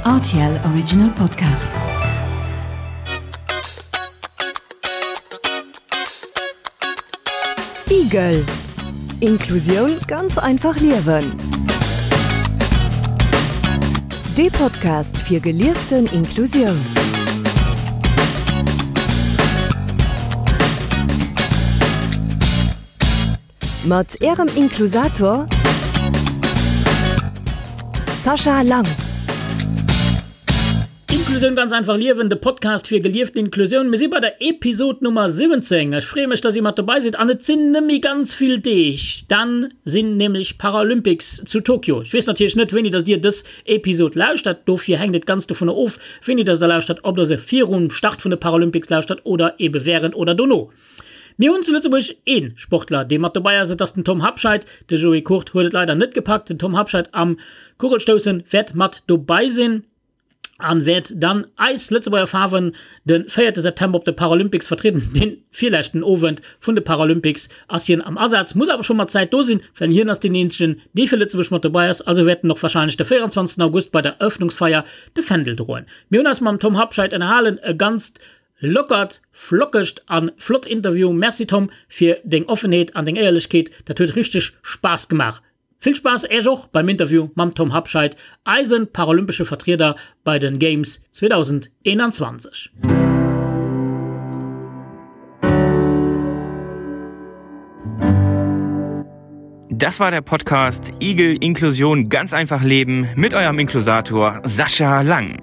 RTL Original Podcast. Igel. Inklusioun ganz einfach liewen. Dee Podcast fir gelieften Inklusioun. Mat Ärem Inklusator Sascha Lang. Inklusioun ganz einfach liewen, de Podcast fir gelieften Inklusioun. Mir si bei der Episod Nummer 17. Ech freeë mech, dass dir mat dobei sidd an et sinn nëmme ganz vill Deeg, dann sinn nämlech Paralympics zu Tokio. Ech weess natierlech net, wéini dass dir dës Episod lauschtert, dofir hänkt et ganz dovunner of, wéini dass der lauschtert, ob der se virum Start vun de Paralympics lauschtert oder ebe wärend oder dono. Mir hunn zu Lëtzebuerg ee Sportler, dee mat dobäi ass, et ass den Tom Habscheid. De Joé Kurt huet et leider net gepackt. Den Tom Habscheid am Kugelstoussen wäert mat dobäi sinn an wäert dann eis Lëtzebuerger Faarwen de 4 September op de Paralympics vertrieden. Dee virleschten Owend vun de Paralympics ass hien am Asaz, muss awer scho mat Zäit do sinn, well hien ass deen eenzegen, dee fir Lëtzebuerg mat dobäi ass. Also wäert en och warscheinlech de 24 August bei der Eröffnungsfeier de Fändel droen. Mir hunn eis mam Tom Habscheid ënnerhalen, e ganzt Lockert, flockegt an flott Interview. Merci Tom fir deng Offenheet an deng Éierlechkeet, dat huet richteg Spaass gemaach. Vill Spaass Äech och beim Interview mam Tom Habscheid, eisen paralympesche Vertrieder bei den Games 2021. Das war der Podcast Igel Inklusion ganz einfach leben mit eurem Inklusator Sascha Lang.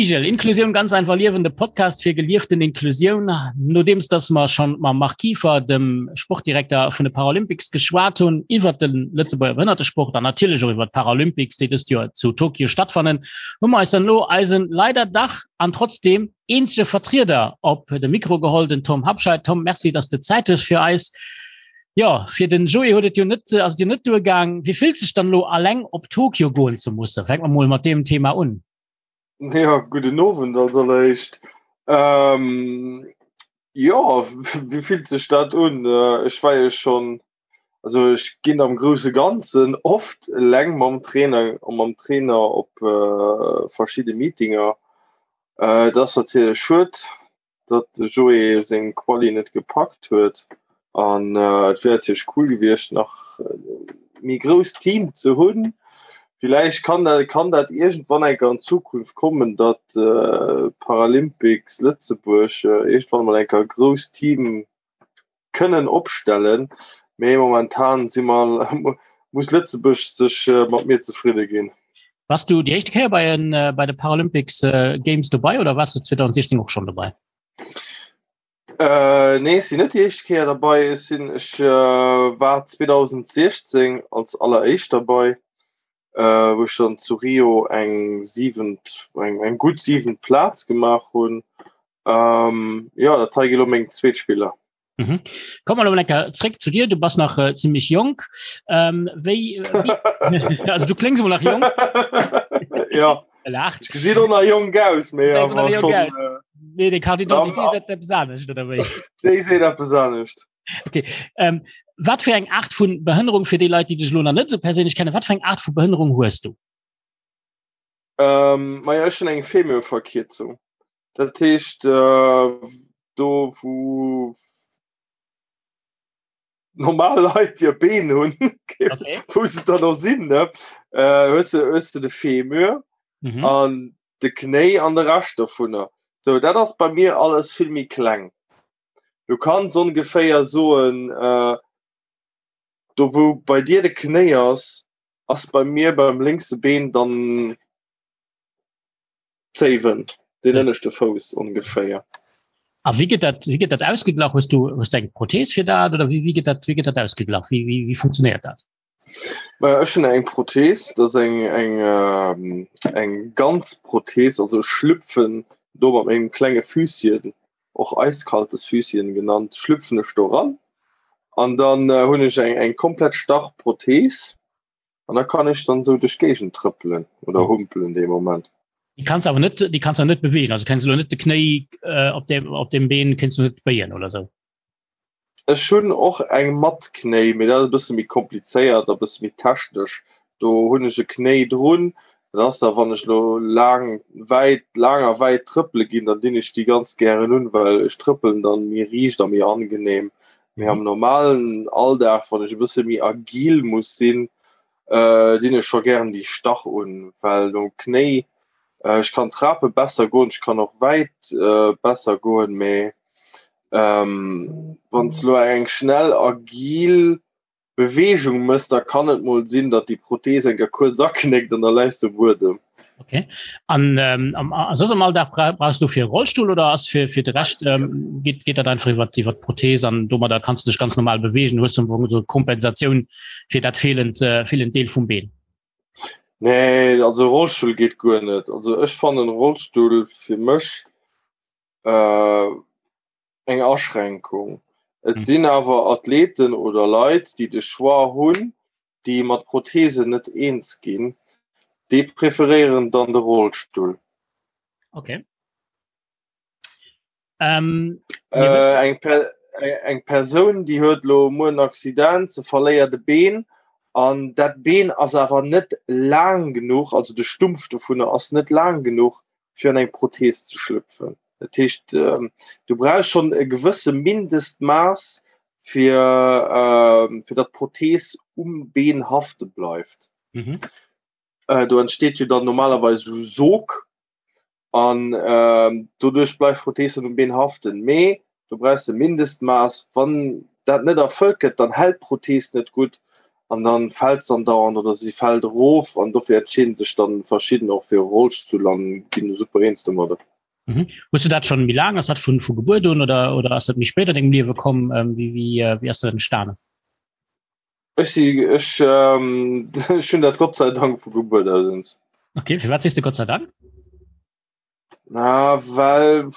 Igel, Inklusioun ganz einfach liewen, de Podcast fir gelieften Inklusioun. Nodeems dass mer schonn mam Marc Kieffer, dem Sportdirekter vun de Paralympics, geschwat hunn iwwert de Lëtzebuerger Behënnertesport an natierlech och iwwert d'Paralympics, déi dëst Joer zu Tokio stattfannen, hu mer eis dann elo eisen leider dach an trotzdeem eenzege Vertrieder op de Mikro geholl, den Tom Habscheid. Tom, merci, dass de Zäit hues fir eis. Jo, fir den Joé huet et jo net, ass et jo net duergaang. Wéi fillt sech dann elo alleng op Tokio goen ze mussen? Fänke mer mol mat deem Thema un. Ja, gudden Owend als alleréischt. Ähm, jo, wéi fillt sech dat un? Ech war jo schonn, also ech ginn am grousse Ganzen oft eleng mam Trainer, mam Trainer op verschidde Meetinger. Et ass natierlech schued, datt de Joé seng Quali net gepackt huet an et wier natierlech cool gewiescht nach méi grousst Team ze hunn. Villäicht kann dat kann dat iergendwann eng Kéier an Zukunft kommen, datt Paralympics Lëtzebuerg iergendwann emol eng Kéier e grousst Team kënnen opstellen, mee momentan si mer, muss Lëtzebuerg sech mat mir zefridde ginn. Wars du déi éischte Kéier bei en bei de Paralympics Games dobei oder wars du 2016 och schonn dobei? Äh, nee, ech sinn net déi éischt Kéier derbei. Ech sinn, ech war 2016 als alleréischt derbei, wou ech dann zu Rio eng siwent, eng, eng gutt siwent Plaz gemaach hunn. Ähm, jo, dat hei gi lo meng zweet Spiller. Mhm. Komm mal lecker zréck zu dir, du bass nach äh, ziemlich jonk. Ähm, wéi, wéi also du kléngs emol nach jonk. ja. Lacht. Ech gesinn och nach jonk aus, mee awer schon. Äh, nee, déi Carte d'identité seet eppes anescht, oder wéi? Déi seet eppes anescht. Okay. Ähm, wat fir eng Art vun Behënnerung fir déi Leit, déi dech lo nach net sou perséinlech kennen, wat fir eng Art vu Behënnerung hues du? Ähm, maja, ech hunn eng Femurverkierzung. Dat heescht, do wou normal Leit hir Been hunn, wou se dann och sinn, ne, hues de, hues de de Femur an de Knéi an de Rescht dovunner. Sou, dat ass bei mir alles vill méi kleng. Du kanns ongeféier soen, do wou bei dir de Knéi ass, ass bei mir beim lénkse Been dann Zéiwen, deen ënneschte Fouss ongeféier. A wéi gëtt dat, wéi gëtt dat ausgeglach? Hues du, hues du eng Prothees fir dat oder wéi, wéi gëtt dat, wéi gëtt dat ausgeglach? Wéi, wéi, wéi funktionéiert dat? Maja, ech hunn eng Prothees, dat ass eng, eng, eng ganz Prothees, also ech schlüpfen do mat mengem klenge Füsschen, och eiskaltes Füsschen genannt, schlüpfen ech do ran. An dann äh, hunn ech eng, eng komplett starr Prothees an da kann ech dann sou duerch d'Géigend trëppelen oder humpelen dee Moment. Déi kanns awer net, déi kanns awer net bewegen, also kenns lo net de Knéi äh, op dem, op dem Been kenns du net béien oder sou. Ech hunn och eng mat Knéi, mee dat ass e bësse méi komplizéiert a bësse méi technesch. Do hunn ech e Knéi drun, dat ass da wann ech lo laang wäit, laang a wäit trëppele ginn, dann dinn ech déi ganz gären un, well ech trëppelen dann méi riicht a méi angenehm. Mee am normalen Alldag, wann ech e bësse méi agil muss sinn, dinn ech scho gären déi Stach un, well nom Knéi, ech kann d'Trape besser goen, ech kann och wäit besser goen, mee wann s lo eng schnell agil Beweegung mëss, da kann et mol sinn, datt déi Prothees eng Kéier kuerz aknéckt an da läis de um Buedem. Okay. An ähm, am, a soss am Alldag bra brauchst du fir Rollstuhl oder ass fir fir de Rescht ähm, geet, geet dat einfach iwwer iwwer d'Prothees an domadder kannst du dech ganz normal bewegen, hues du so Kompensatioun fir dat fehlend äh, fehlend Deel vum Been? Nee, also Rollstuhl geet guer net. Also ech fannen Rollstuhl fir mech äh, eng Aschränkung. Et sinn awer Athleten oder Leit, déi de Choix hunn, déi mat Prothesen net eens ginn, déi preferéieren dann de Rollstull. Okay. Ähm, äh, eng, per eng Persoun, déi huet lo muer en Accident, se verléiert e Been an dat Been ass awer net laang genuch, also de Stumpf dovunner ass net laang genuch, fir an eng Prothees ze schlüpfen. Dat heescht, du brauchs schonn e gewësse Mindestmaass, fir, fir datt d'Prothees um Been hafte bleift. Mhm. Do entsteet jo dann normalerweis esou Sog an doduerch bleift d'Prothees dann um Been haften. Mee du brauchs e Mindestmaass. Wann dat net erfëllt gëtt, dann hält d'Prothees net gutt an dann fält se andauernd oder si fält erof an dofir entscheeden sech dann verschidden och fir e Rollstull an ginn super eens domadder. Mhm. Hues du dat schon méi laang? Ass dat vun vu Gebuert un oder oder ass dat méi spéit an dengem Liewe komm? Ähm, wéi wéi äh, wéi ass dat entstanen? Ech si ech ähm, ech hunn dat Gott sei Dank vu Gebuert aus uns. Okay, firwat sees de Gott sei Dank? Na well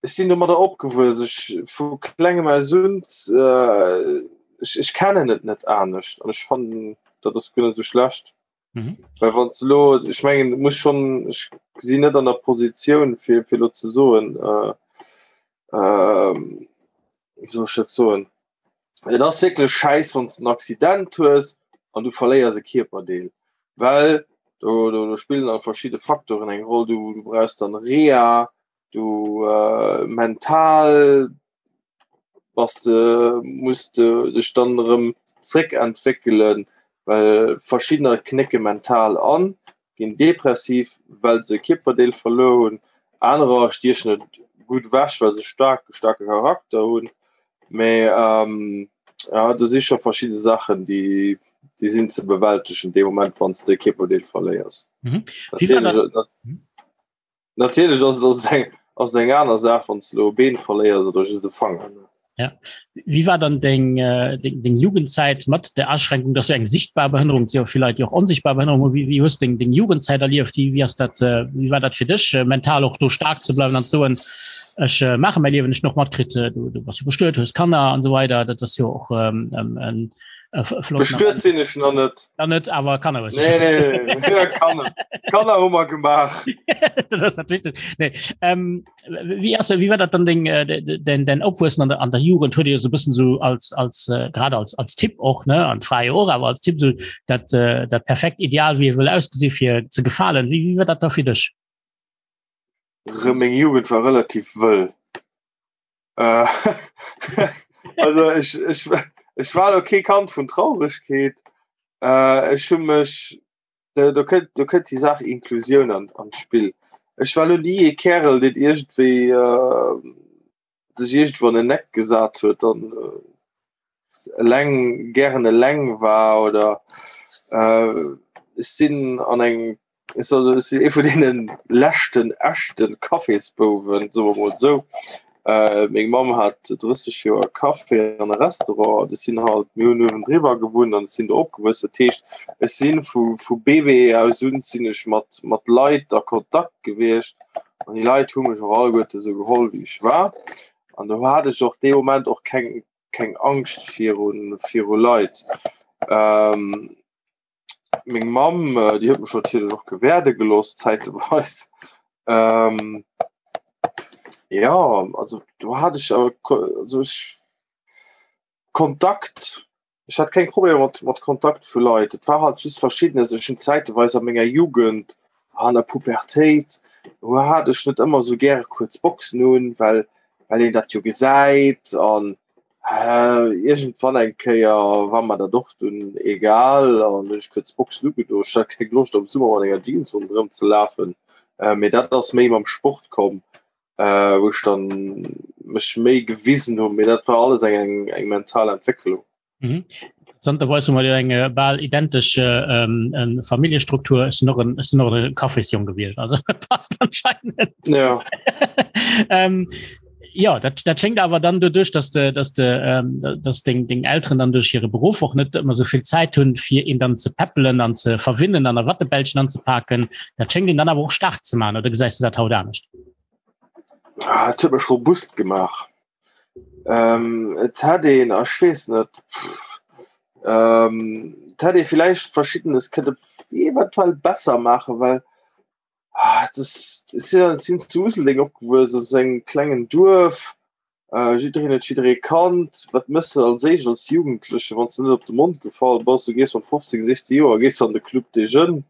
ech sinn domadder opgewuess, ech vu klengem aus un, ech ech kennen et net anescht an ech fannen dat ass guer net esou schlecht. Mhm. Well wann s de elo, ech mengen et muss schonn, ech sinn net an der Positioun fir fir elo ze soen, wéi soll ech dat soen, et ass wierklech schäiss wann s de en Accident hues an du verléiers e Kierperdeel, well do do do spillen dann verschidde Faktoren eng Roll, du du brauchs dann Reha, du mental bass de muss de dech dann erëm zréckentwéckelen, well verschiddener knécke mental an, ginn depressiv, well se e Kierperdeel verluer hunn, anerer stiechen et gutt ewech, well se staark e staarke Charakter hunn. Mee jo, do si scho verschidde Saachen, déi déi sinn ze bewältegen dee Moment, wann s de e Kierperdeel verléiers. Mhm. Wéi war dat? Natierlech ass et eng, ass et eng aner Saach, wann s de elo e Been verléiers oder just e Fanger. Ja. Wéi war dann deng, deng, deng Jugendzäit mat der Aschränkung, dass du eng sichtbar Behënnerung, et si jo vill Leit, déi och onsichtbar Behënnerung hunn, wéi, wéi hues du deng, deng Jugendzäit erlieft? Wéi, wéi ass dat, wéi war dat fir dech, mental och do staark ze bleiwen an ze soen, ech maache mäi Liewen, ech hunn och matkritt, du, du bass jo bestuet, hues Kanner an esou weider, dat ass jo och en, Bestuet sinn ech nach net. Nach net, awer Kanner hues du. Nee, nee, nee. Kanner. Kanner hu mer gemaach. Dat ass dat Wichtegst. Nee. Ähm, wéi ass, wéi war dat dann deng, den, den Opwuessen an der, an der Jugend? Huet Dir so bëssen so als, als, äh, grad als, als Tipp och, ne, an d'Fra jo och, awer als Tipp so dat, äh, dat perfekt Ideal, wéi e wëll ausgesi fir ze gefalen. Wéi, wéi war dat da fir dech? Meng Jugend war relativ wëll. Äh, also ech, ech, ech war lo kee Kand vun Trauregkeet. Äh, ech hu mech do, do kënnt do kënnt déi Saach Inklusioun an, an d'Spill. Ech war lo ni ee Kärel, deen iergendwéi äh, sech iergendwou an en Eck gesat huet an äh, eleng gären eleng war oder äh, ech sinn an eng ech also ech sinn ee vun deene leschten echte Cafésbouwen, soe mer mol esou. Äh, meng Mamm hat 30 Joer Café an e Restaurant an ech sinn halt, mir hunn uewendriwwer gewunnt an ech sinn do opgewuess. Dat heescht, ech sinn vu vu Bébé aus un sinn ech mat mat Leit a Kontakt gewiescht an déi Leit hu mech och alleguerte esou geholl wéi ech war. An do hat ech och dee Moment och keng. keng Angscht viru viru Leit. Ähm, meng Mamm, äh, déi huet mech natierlech och gewäerde gelooss zäiteweis. Ähm, ja, also do hat ech awer also ech Kontakt, ech hat keng Problemer mat mat Kontakt vu Leit. Et war halt just verschiddenes, ech hunn zäiteweis a menger Jugend, an der Pubertéit, do hat ech net ëmmer esou gäre kuerz Boxen un, well well een dat jo gesäit an iergendwann eng Kéier war mer dat och dunn egal an hunn ech kuerz Boxen ugedo. Ech hat keng Loscht am Summer mat enger Jeans ronderëm ze lafen, mee dat ass méi mam Sport komm, wou ech dann mech méi gewisen hunn, mee dat war alles eng eng mental Entwécklung. Mhm. Interessanterweis hu mer jo eng äh, bal identesch äh, ähm, ähm, Familljestruktur. Ech sinn och en, ech sinn och e Kaffisjong gewiescht. Also passt anscheinend. Ja. ähm, ja, dat, dat schéngt awer dann doduerch, dass de, dass de, ähm, dass deng, deng Elteren dann duerch hire Beruff och net ëmmer sou vill Zäit hunn, fir een dann ze peppelen an ze verwinnen an a Wattebällchen anzepaken. Dat schéngt een dann awer och staark ze maachen, oder gesäis du dat haut anescht? Ah, et huet mech robust gemaach. Ähm, et hätt een, ech weess net, ähm, et hätt ee villäicht Verschiddenes kënne eventuell besser maachen, well ah, das, das sinn, sinn zu Useldeng opgewuess, also engem klengen Duerf, äh, jiddereen huet jidderee kannt. Wat méchs de als éischt als Jugendleche, wann s de net op de Mond gefall bass? Du gees mat 15, 16 Joer gees an de Club des Jeunes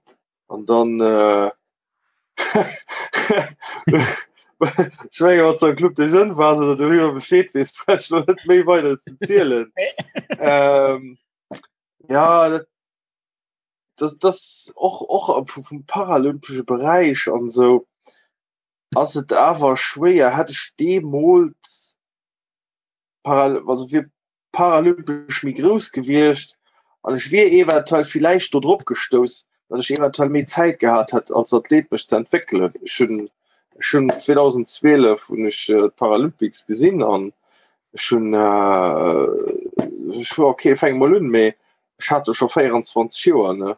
an dann äh, Ech menge wat am Club des Jeunes war oder du iwwer Bescheed wees net méi weider ze zielen. ähm, ja dat, das, das och och vum paralympesche Beräich an sou ass et awer schwéier hätt ech deemools paral also wier paralympesch méi grouss gewiescht an ech wier eventuell villäicht do drop gestouss, datt ech eventuell méi Zäit gehat hätt als Athlet mech ze entwéckelen. Ech hunn ech hunn 2012 hunn ech d'Paralympics gesinn an ech hunn ech hu okay fänke mol un, mee ech hat do scho 24 Joer ne.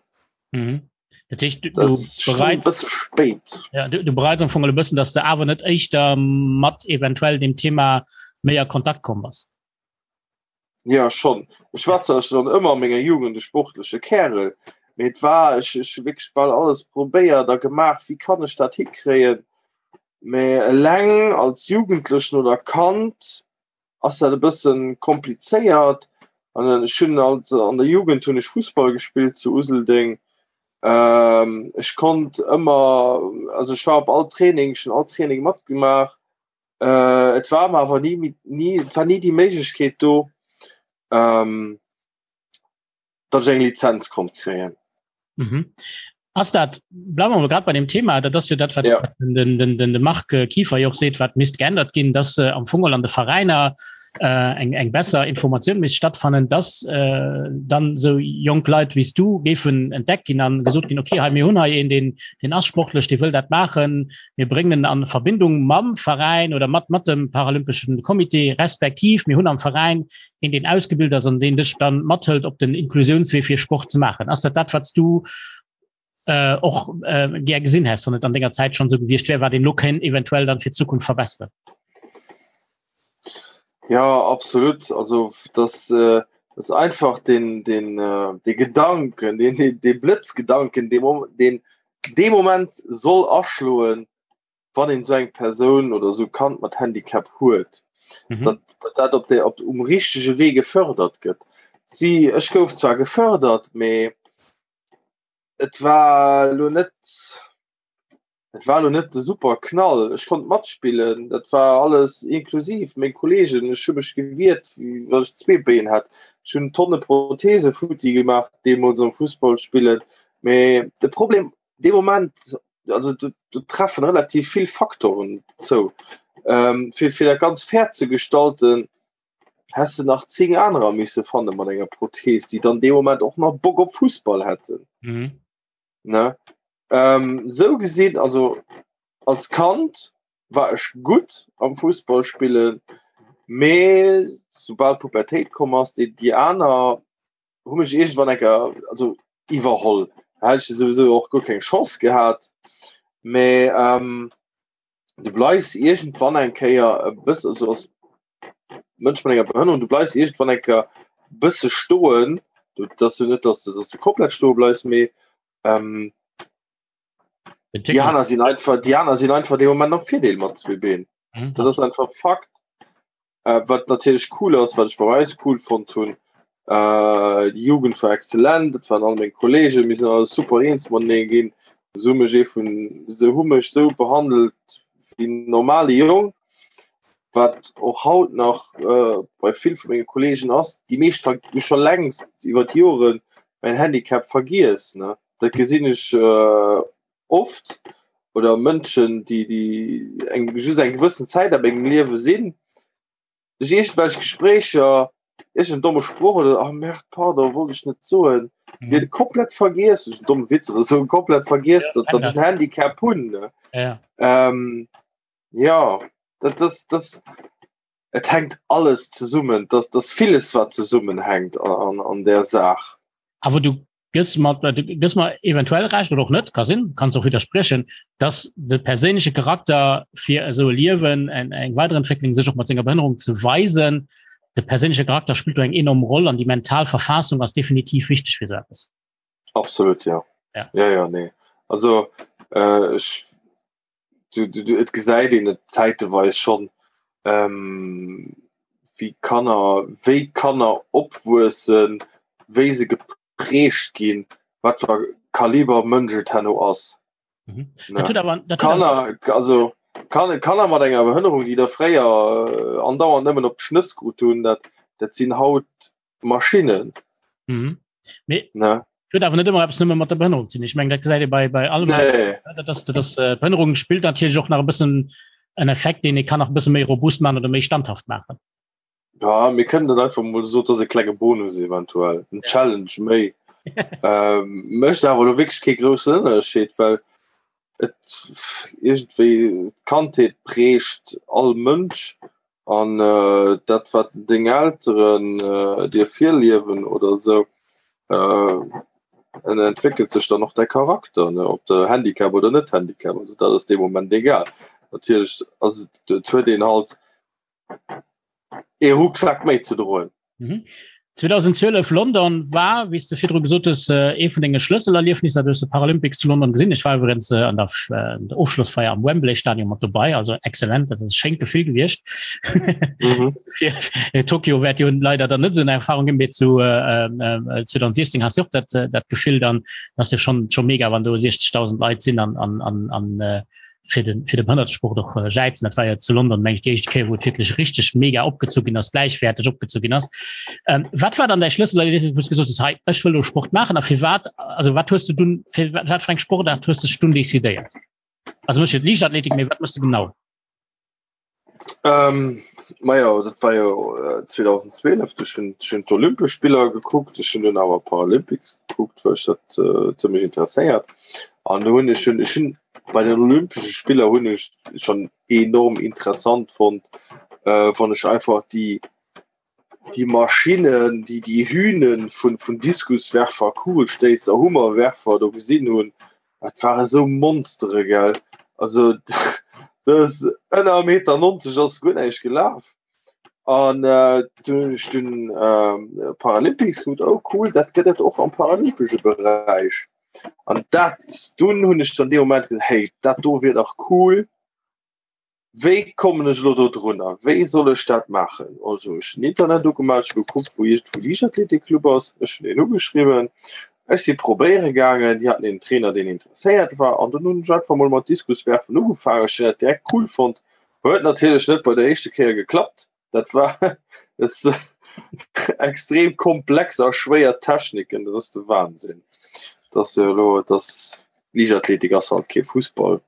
Mhm. Dat heescht, du, du bereits bësse spéit. Ja, du, du bereits am Fong e bëssen, dass du awer net éischter mat eventuell dem Thema méi a Kontakt komm bass. Ja schon. Ech war zwar schon ëmmer a menger Jugend e sportleche Kärel, mee et war ech ech hu wierklech bal alles probéiert a gemaach, wéi kann ech dat hikréien. Mee eleng als Jugendlechen oder Kand ass dat e bëssen komplizéiert. An ech hunn als an der Jugend hunn ech Fussball gespillt zu Useldeng. Ähm, ech konnt ëmmer, also ech war op all Training, ech hunn all Training matgemaach. Äh, et war mer awer ni, ni, et war ni déi Méiglechkeet do, ähm, datt ech eng Lizenz konnt kréien. Mhm. Ass dat, bleiwen wir mol grad bei dem Thema, dat ass jo dat, wat Ja. den, den, den, de Marc Kieffer jo och seet, wat misst geännert ginn, dass äh, am Fong an de Veräiner äh, eng, eng besser Informatioun misst stattfannen, dass äh, dann sou jonk Leit wéi s du géifen entdeckt ginn an gesot ginn, okay, hei mir hunn hei een, deen, deen ass sportlech, dee wëll dat maachen, mir bréngen en an Verbindung mam Veräin oder mat, mat dem Paralympeschen Comité, respektiv mir hunn am Veräin een deen ausgebilt ass an deen dech dann mathëlt op den Inklusiounswee fir Sport ze maachen. Ass dat dat wat s du äh, och äh, gär gesinn häss, wann et an denger Zäit schon sou gewiescht wär, wat een lo kéint eventuell dann fir d'Zukunft verbesseren? Ja absolut also das äh, das einfach den den äh, de Gedanken den den, den Blëtzgedanken den den dee Moment soll aschloen wann een esou eng Persoun oder esou Kand mat Handicap huet, mhm. dat, dat dat op der op um richtege Wee gefördert gëtt. Si ech gouf zwar gefördert, mee et war lo net et war lo net de super Knall. Ech konnt matspillen, dat war alles inklusiv meng Kollegen, ech hu mech gewiert, wéi wann ech zwee Been hätt. Ech hunn Tonne Prothese futti gemaach deemools am Fussball spillen. Mee de Problem dee Moment also do, do treffen relativ vill Faktoren zou. Ähm, fir, fir dat ganz fair ze gestalten, häss de nach 10 anerer misse fanne mat enger Prothese, déi dann dee Moment och nach Bock op Fussball hätten. Mhm. Ne? Ähm, sou gesinn, also als Kand war ech gutt am Fussball spillen, mee soubal d'Pubertéit komm ass, déi, déi aner hu mech iergendwann eng Kéier also iwwerholl. Da hätt ech souwisou och guer keng Chance gehat. Mee ähm, du bleifs iergendwann eng Kéier e bëssen, also als. Mënsch mat enger Behënnerung, du bleifs iergendwann eng Kéier bësse stoen. Du, dat ass jo net, dass du, dass du komplett stoe bleifs, mee ähm, déi aner sinn einfach, déi aner sinn einfach dee Moment am Virdeel mat zwee Been. Mhm. Dat ass einfach Fakt. Äh, wat natierlech cool ass, wat ech bei eis cool fonnt hunn, äh, déi Jugend war exzellent, dat waren all meng Kollegen, mir sinn alle super eens matenee ginn. Se hu mech ee vun, se hu mech sou behandelt wéi en normale Jong, wat och haut nach äh, bei vill vu menge Kollegen ass. Déi meescht hu scho längst iwwer d'Joren mäin Handicap vergiess, ne. Dat gesinn ech äh, oft oder Mënschen, déi déi eng just eng gewëssen Zäit a mengem Liewe sinn, duerch iergendwelch Gespréicher, iergend en domme Sproch oder oh merde, pardon, wollt ech net soen, mhm. déi komplett vergiess, duerch en domme Witz oder sou, komplett vergiess, ja, datt ech en Handicap hunn. Ne? Ja. Ähm, ja, dat, das, das, et hängt alles zesummen, das, das villes wat zesummenhängt an, an, an der Saach. Awer du gëss mer du gëss mer eventuell Recht oder och net, ka sinn, kanns och widderspriechen, dass de perséinleche Charakter fir esou e Liewen, eng eng Weiderentwécklung, sech och mat senger Behënnerung ze weisen, de perséinleche Charakter spillt do eng enorm Roll an déi mental Verfassung ass definitiv wichteg fir esou eppes. Absolut, ja. Ja. Ja, ja, nee. Also äh, ech du, du, du, et gesäit een et zäiteweis schonn, ähm, wéi Kanner, wéi Kanner opwuessen, wéi se geprägt ginn, wat fir Kaliber Mënsch et herno ass. Mhm. Ne? Dat huet awer, dat huet awer, Kanner, also kann, Kanner mat enger Behënnerung, déi da fréier äh, andauernd nëmmen op d'Schnëss krut hunn, dat, dat sinn haut Maschinnen. Mhm. Mee Ne? huet awer net ëmmer eppes nëmme mat der Behënnerung ze dinn. Ech mengen, dat gesäit ee bei, bei allem. Nee. Dat ass, dat ass, äh, d'Behënnerung spillt natierlech och nach e bëssen en Effekt, deen ee kann nach e bësse méi robust maachen oder méi standhaft maachen. Ja, mir kënnen dat einfach mol so, dat ass e klenge Bonus eventuell, en Challenge méi. ähm, mécht awer elo wierklech kee groussen Ënnerscheed, well et iergendwéi d'Kandheet prägt all Mënsch an dat wat deng Elteren dir virliewen oder esou, en entwéckelt sech dann och däi Charakter, ne, ob de Handicap oder net Handicap, also dat ass dee Moment egal. Natierlech ass et, et huet een halt ee Rucksak méi ze droen. Mhm. 2012 London war, wéi s de virdru gesot hues, ee vun denge Schlësselerliefnisser. Du hues de Paralympics zu London gesinn. Ech war iwwregens an der, der Ofschlossfeier am Wembley Stadion mat dobei, also exzellent, dat ass e schéint Gefill gewiescht. Mhm. Fir Tokio wäert jo leider dann net esou eng Erfahrung ginn, mee zu äh, 2016 has du och dat, dat Gefill dann, dat ass jo schon, schon mega, wann do 60.000 Leit sinn an, an, an, an äh, fir den fir de Behënnertesport och äh, jäizen. Dat war ja zu London meng ich déi éischt Kéier, wou et wierklech richteg mega opgezu ginn ass, gläichwäerteg opgezu ginn ass. Ähm, wat war dann däi Schlëssel, wou du gesot hues, hei ech wëll lo Sport maachen a firwat, also wat hues du dunn fir wat fir eng Sportaart hues du dech dunn decidéiert? Also mech Liichtathletik, mee wat mëss du genau? Ähm, majo, dat war jo äh, 2012, ech hunn ech hunn d'Olympesch Spiller gekuckt, ech hunn dunn awer Paralympics gekuckt, well ech dat äh, zimmlech interesséiert. An do hunn ech hunn ech hunn bei den Olympesche Spiller hunn ech schon enorm interessant fonnt, äh, wann ech einfach déi déi Maschinnen, déi déi Hühnen vun vun Diskuswerfer, Kugelstéisser, Hummerwerfer do gesinn hunn. Dat ware sou Monstere, gell. Also dat ass ënner Meter 90 ass guer näischt gelaf. An äh, dunn hunn ech dunn äh, Paralympics gekuckt, oh cool, dat gëtt et och am paralympesche Beräich. An dat dunn hunn ech dann dee Moment gesot, hey, dat do wier dach cool. Wéi kommen ech elo do drunner? Wéi soll ech dat maachen? Also ech hunn Internet ugemaach, ech hu gekuckt, wou iergendwou Liichtathletikclub ass. Ech hunn een ugeschriwwen. Ech si probéiere gaangen. Déi haten een Trainer, deen interesséiert war. An dunn hunn ech einfach mol mat Diskuswerfen ugefaangen. Ech hunn dat direkt cool fonnt. Huet natierlech net bei der éischte Kéier geklappt. Dat war es extrem komplex a schwéier Techniken. Dat ass de Wahnsinn. Dat ass jo elo, dat ass, Liichtathletik ass halt kee Fussball.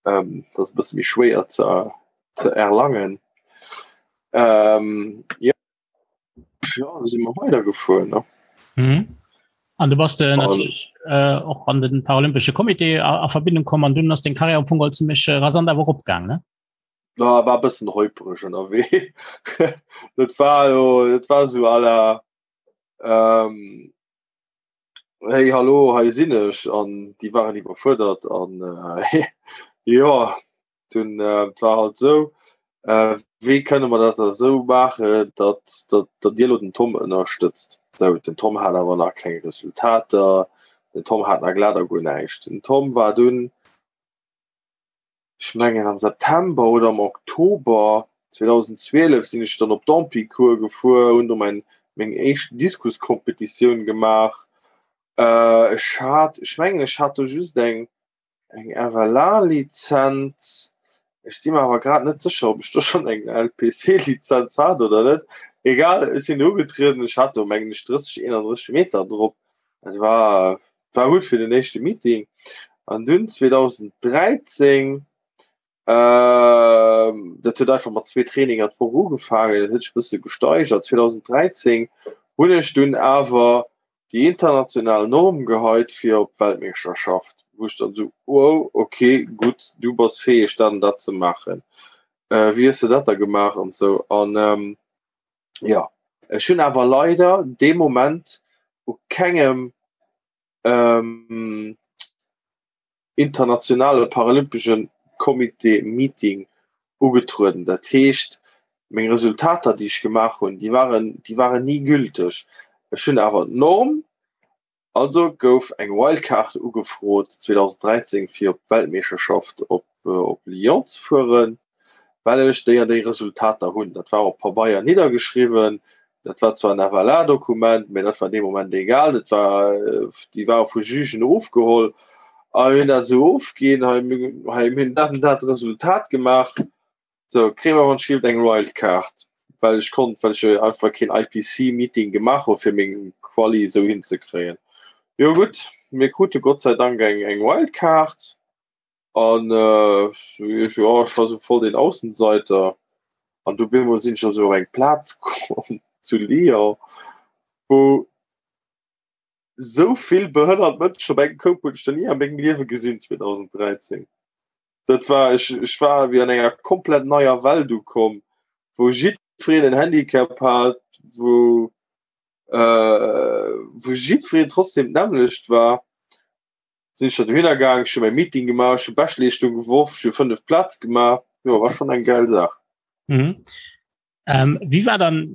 Ähm, dat ass e bësse méi schwéier ze, ze erlangen. Ähm, ja, ja, da si mer weidergefuer, ne? Mhm. An du bass de natierlech äh, och an den Paralympesche Comité a, a Verbindung komm an dunn ass deng Karriär am Fong all zimmlech äh, rasant awer eropgaang, ne? Na, war e bëssen holpereg ënnerwee. Dat war jo, dat war sou à la, ähm, Hey hallo, hei sinn ech an déi waren iwwerfuerdert an äh, jo dunn äh, war halt sou. Wéi kënne mer dat da esou maachen, datt datt Dir elo den Tom ënnerstëtzt? Sou, den Tom hat awer nach keng Resultater, den Tom hat nach glat a guer näischt. Den Tom war dunn, ech mengen am September oder am Oktober 2012 sinn ech dann op d'Ampicourt gefuer, hunn do mäin meng éischt Diskuscompetitioun gemaach. Ech hat, ech mengen ech hat do just eng Eng FLA-Lizenz? Ech si mer awer grad net sécher, ob ech do schonn eng LPC-Lizenz hat oder net. Egal, ech sinn do ugetrieden. Ech hat do, mengen ech, 30, 31 Meter drop. Dat war, war gutt fir den éischte Meeting. An dunn 2013, dat huet einfach mat zwee Traininger d'Woch ugefaangen, dat huet sech e bësse gesteigert. 2013 hunn ech dunn awer déi international Norm geheit fir op d'Weltmeeschterschaft, wou ech dann esou, wow, ok, gutt, du bass fäeg dat an dat ze maachen, wéi hues de dat da gemaach an esou. An jo, ech hunn awer leider dee Moment u kengem internationale paralympesche Comité Meeting ugetrueden. Dat heescht, meng Resultater, déi ech gemaach hunn, déi waren, déi waren ni gülteg. Ech hunn awer d'Norm, also gouf eng Wildcard ugefrot 2013 fir op d'Weltmeeschterschaft op op Lyon ze fueren. Well ech déi an déi Resultater hunn. Dat war op Pabeier niddergeschriwwen. Dat war zwar en FLA-Dokument, mä dat war dee Moment egal. Dat war, déi ware vu Jugen ofgeholl a mir hunn dat esou ofginn, hei, hei, mir hunn dat an dat Resultat gemaach. Sou, kréie mer anscheinend eng Wildcard, well ech konnt, well ech einfach keen IPC-Meeting gemaach hu fir meng Quali esou hinzekréien. Jo gutt, mir krute Gott sei Dank eng, eng Wildcard. An ech jo ech war sou voll den Aussenseiter an du bemol sinn ech also op eng Plaz komm zu Lyon, wou sou vill behënnert Mënschen op engem Koup hunn ech nach ni a mengem Liewe gesinn 2013. Dat war ech ech war wéi an enger komplett neier Welt ukomm, wou jiddwereen en Handicap hat, wou wou jiddwereen trotzdem d'nämmlecht war. Sinn ech da dohinner gaang, ech hu mäi Meeting gemaach, ech hu Beschtleeschtung geworf, ech hu 5 Plaz gemaach, jo war schonn eng gäil Saach. Mhm. Ähm, wéi war dann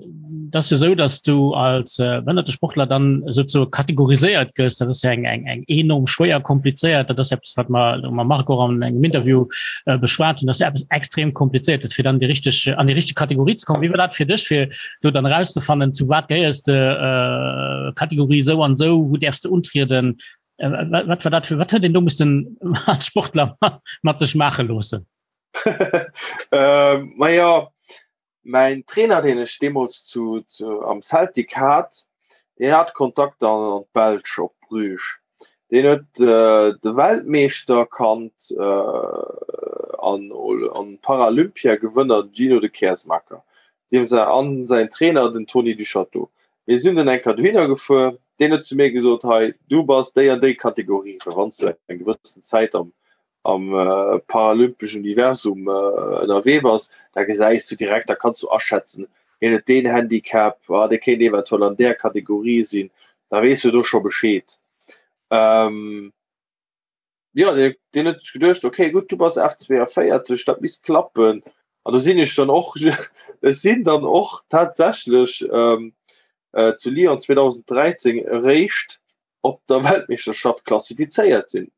dat jo sou, dass du als äh, behënnerte Sportler dann souzesoe kategoriséiert gëss? Dat ass ja eng, eng, eng enorm schwéier komplizéiert, dat ass eppes wat mer mam Marc och an engem Interview äh, beschwat hunn, dat ass ja eppes extrem komplizéiertes fir dann déi richteg an déi richteg Kategorie ze kommen. Wéi war dat fir dech fir do dann erauszefannen, zu wat gehéiers de, äh, Kategorie sou an sou, wou däerfs de untrieden? Äh, wat war dat fir wat huet een do mussten als Sportler mat sech maache loossen? ähm, ma ja, mein Trainer, den ech deemools zu, zu, am Celtic hat, deen hat Kontakt an, an d'Belsch op Bruges. Deen huet äh, de Weltmeeschter kannt äh, an, an Paralympia-Gewënner Gino de Keersmaeker. Deem säi, an säin Trainer den Tony Duchâteau. Mir sinn dunn eng Kéier dohinner gefuer. Deen huet zu mir gesot, Hei, du bass déi an déi Kategorie, well wann s du eng gewëssen Zäit am, am paralympeschen Universum ënnerwee bass, da gesäis du direkt, da kanns du aschätzen, hien huet deen Handicap, ah, dee kéint eventuell an där Kategorie sinn, da weess du do scho Bescheed. Jo, deen huet sech geduecht, okay, gutt, du bass F42, dat misst klappen. An do sinn ech dann och, ech sinn dann och tatsächlech zu Lyon 2013 eréischt op der Weltmeeschterschaft klassifizéiert sinn,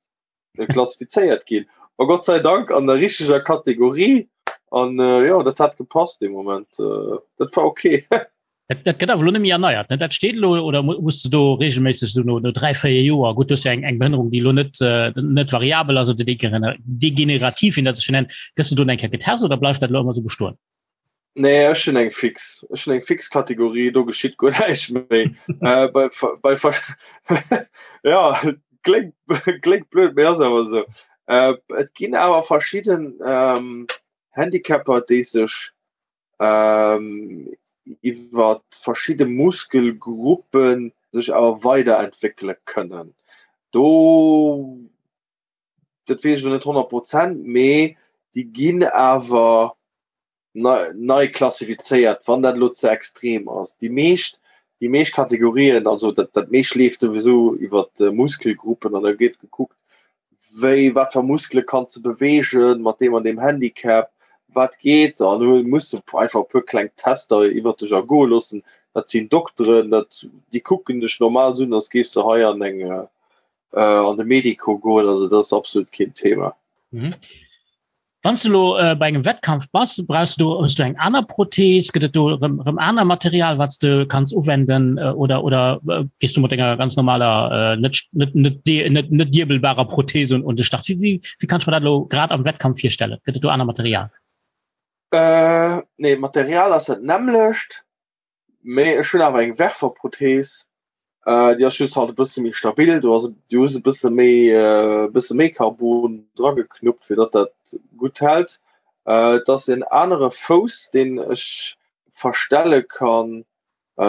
klassifizéiert ginn. A Gott sei Dank an der richteger Kategorie. An jo, dat hat gepasst dee Moment. Dat war okay. Dat, dat gëtt awer elo net méi erneiert, ne? Dat steet elo oder muss du do regelméisseg so no, no 3, 4 Joer, gutt, du hues jo eng, eng Behënnerung, déi elo net, äh, net variabel ass oder degenerativ, wéi dat sech nennt, gëss du do eng Kéier getest oder bleift dat elo ëmmer sou bestoen? Nee, ech hunn eng fix. Ech hunn eng fix Kategorie, do geschitt guer näischt méi. äh, bei, bei, ja, kléngt, kléngt blöd, mee ass awer esou. Äh, et ginn awer verschidden ähm, Handicapper, déi sech iwwer verschidde Muskelgruppe sech awer weiderentwéckele kënnen. Do, dat weess ech elo net 100 Prozent, mee déi ginn awer nei klassifizéiert, wann dat elo ze extrem ass. Déi meescht, déi meescht Kategorien, also dat, dat meescht leeft souwisou iwwer Muskelgruppen an da gëtt gekuckt, wéi, wat fir Muskele kanns de beweegen mat deem an deem Handicap? Wat geet an du muss einfach e puer kleng Tester iwwer dech ergoe loossen. Dat sinn Dokteren, dat déi kucken dech normal un, als géifs de hei an eng an de Medico goen. Also dat ass absolut keen Thema. Mhm. Wann du lo äh, bei engem Wettkampf bass, brauchst du hues du eng aner Prothees, gëtt et do rëm, rëm aner Material, wat du kanns uwenden äh, oder oder äh, gehst du mat enger ganz normaler äh, net net net net net diebelbarer Prothese und, und de Start? Wie, wie, wie kannst du mir dat lo grad am Wettkampf virstellen? Gëtt et do aner Material? Äh, nee, Material ass dat nämmlecht. Mee ech hunn awer eng Werferprothees, déi ass just halt e bësse méi stabil. Do ass du hues e bësse méi e bësse méi Carbon drageknuppt, fir datt dat gutt hält. Et ass en anere Fouss, deen ech verstelle kann,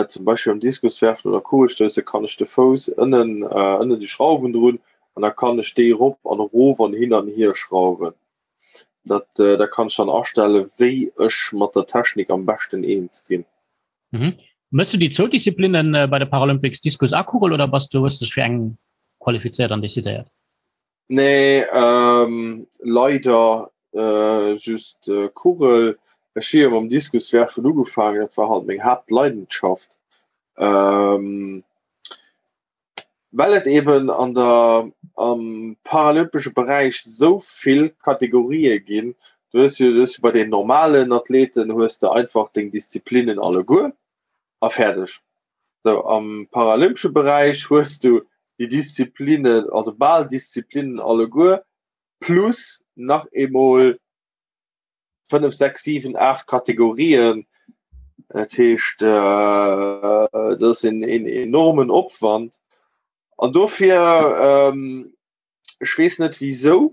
zum Beispill am Diskuswerfen oder Kugelstousse kann ech de Fouss ënnen ënne si Schrauwen drun an da kann ech déi erop an erof an hin an hier schrauwen. Dat da kann ech dann astelle wéi ech mat der Technik am beschten eens ginn. Mhm. Mëss du déi zwou Disziplinnen bei de Paralympics, Diskus a Kugel, oder bass du hues dech fir eng qualifizéiert an decidéiert? Nee, ähm, leider äh, just äh, Kugel. Ech hu jo mam Diskuswerfen ugefaangen, dat war halt meng Haaptleidenschaft. Ähm, Well et eben an der am paralympesche Beräich sou vill Kategorië ginn, du hues jo du hues jo bei den normalen Athleten hues de einfach deng Disziplinnen alleguer a fäerdeg. Sou am paralympesche Beräich hues du déi Disziplinnen, also bal Disziplinnen alleguer plus nach eemol 5, 6, 7, 8 Kategorien. Dat heescht dat ass en enormen Opwand. An dofir ech weess net wisou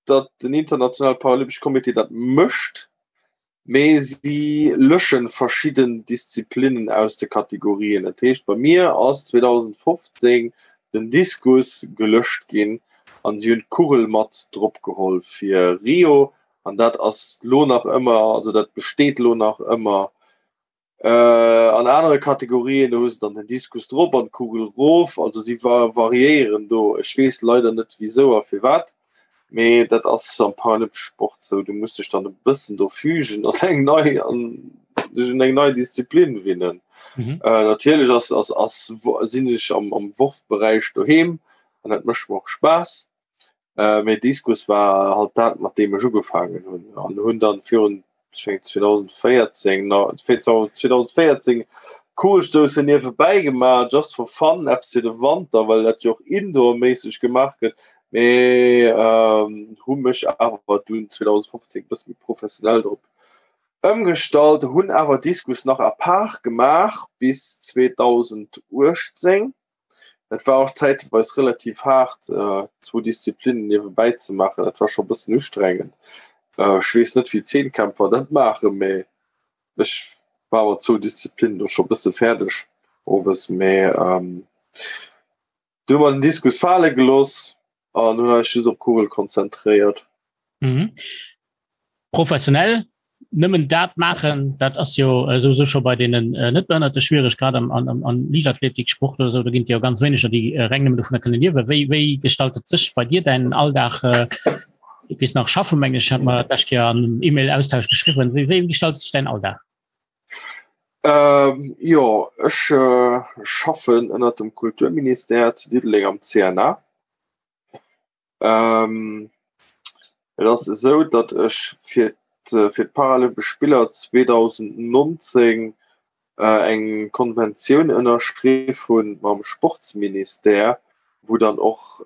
datt den internationale Paralympesche Comité dat mécht, mee si lösche verschidden Disziplinnen aus de Kategorien. Dat heescht bei mir ass 2015 den Diskus gelöscht ginn an si hunn d'Kugel mat drop geholl fir Rio. An dat ass lo nach ëmmer, also dat besteet lo nach ëmmer. An anere Kategorien, do hu se dann den Diskus drop an d'Kugel rof. Also si variéieren do. Ech weess leider net wisou a firwat, mee dat ass am paralympesche Sport sou. Du muss dech dann e bëssen do fügen an eng nei, an dech un eng nei Disziplin winnen. Natierlech ass, ass, ass, sinn ech am, am Worfberäich doheem an dat mécht mer och Spaass. Mee Diskus war halt dat mat deem ech ugefaangen hunn an hunn dann virun 2014 2014 Kugelstoussen niewebäi gemaach just for fun, eppes fir de Wanter, well dat jo och indoorméisseg gemaach gëtt. Mee hu mech awer dunn 2015 e bësse méi professionell drop ëmgestallt, hunn awer Diskus nach à part gemaach bis 2018. Et war och zäitweis relativ haart, zwou Disziplinnen niewebäi ze maachen. Dat war scho e bëssen ustrengend. Ech weess net, wéi Zehnkämpfer dat maachen, mee ech war mat zwou Disziplinnen do scho e bësse fäerdeg owes. Mee du hu mer den Diskus fale gelooss an hunn eis just op d'Kugel konzentréiert. Mhm. Professionell nëmmen dat maachen, dat ass jo äh, souwisou scho bei deenen äh, net Behënnerte schwierig, grad am, am, am Liichtathletiksport oder sou, do ginn et jo ganz wéineger, déi äh, reng nëmmen dovunner kënne liewen. Wéi, wéi gestaltet sech bei dir däin Alldag? Äh, du gees nach schaffen, meng ech, hat mer d'lescht Kéier an einem E-Mail-Austausch geschriwwen. Wéi, wéi gestaltet sech däin Alldag? Ähm, jo, ech äh, schaffen ënnert dem Kulturministère zu Diddeleng am CNA. Ähm, et ass esou, datt ech fir fir d'Paralympesch Spiller 2019 eng Konventioun ënnerschriff hunn mam Sportsministère, wou dann och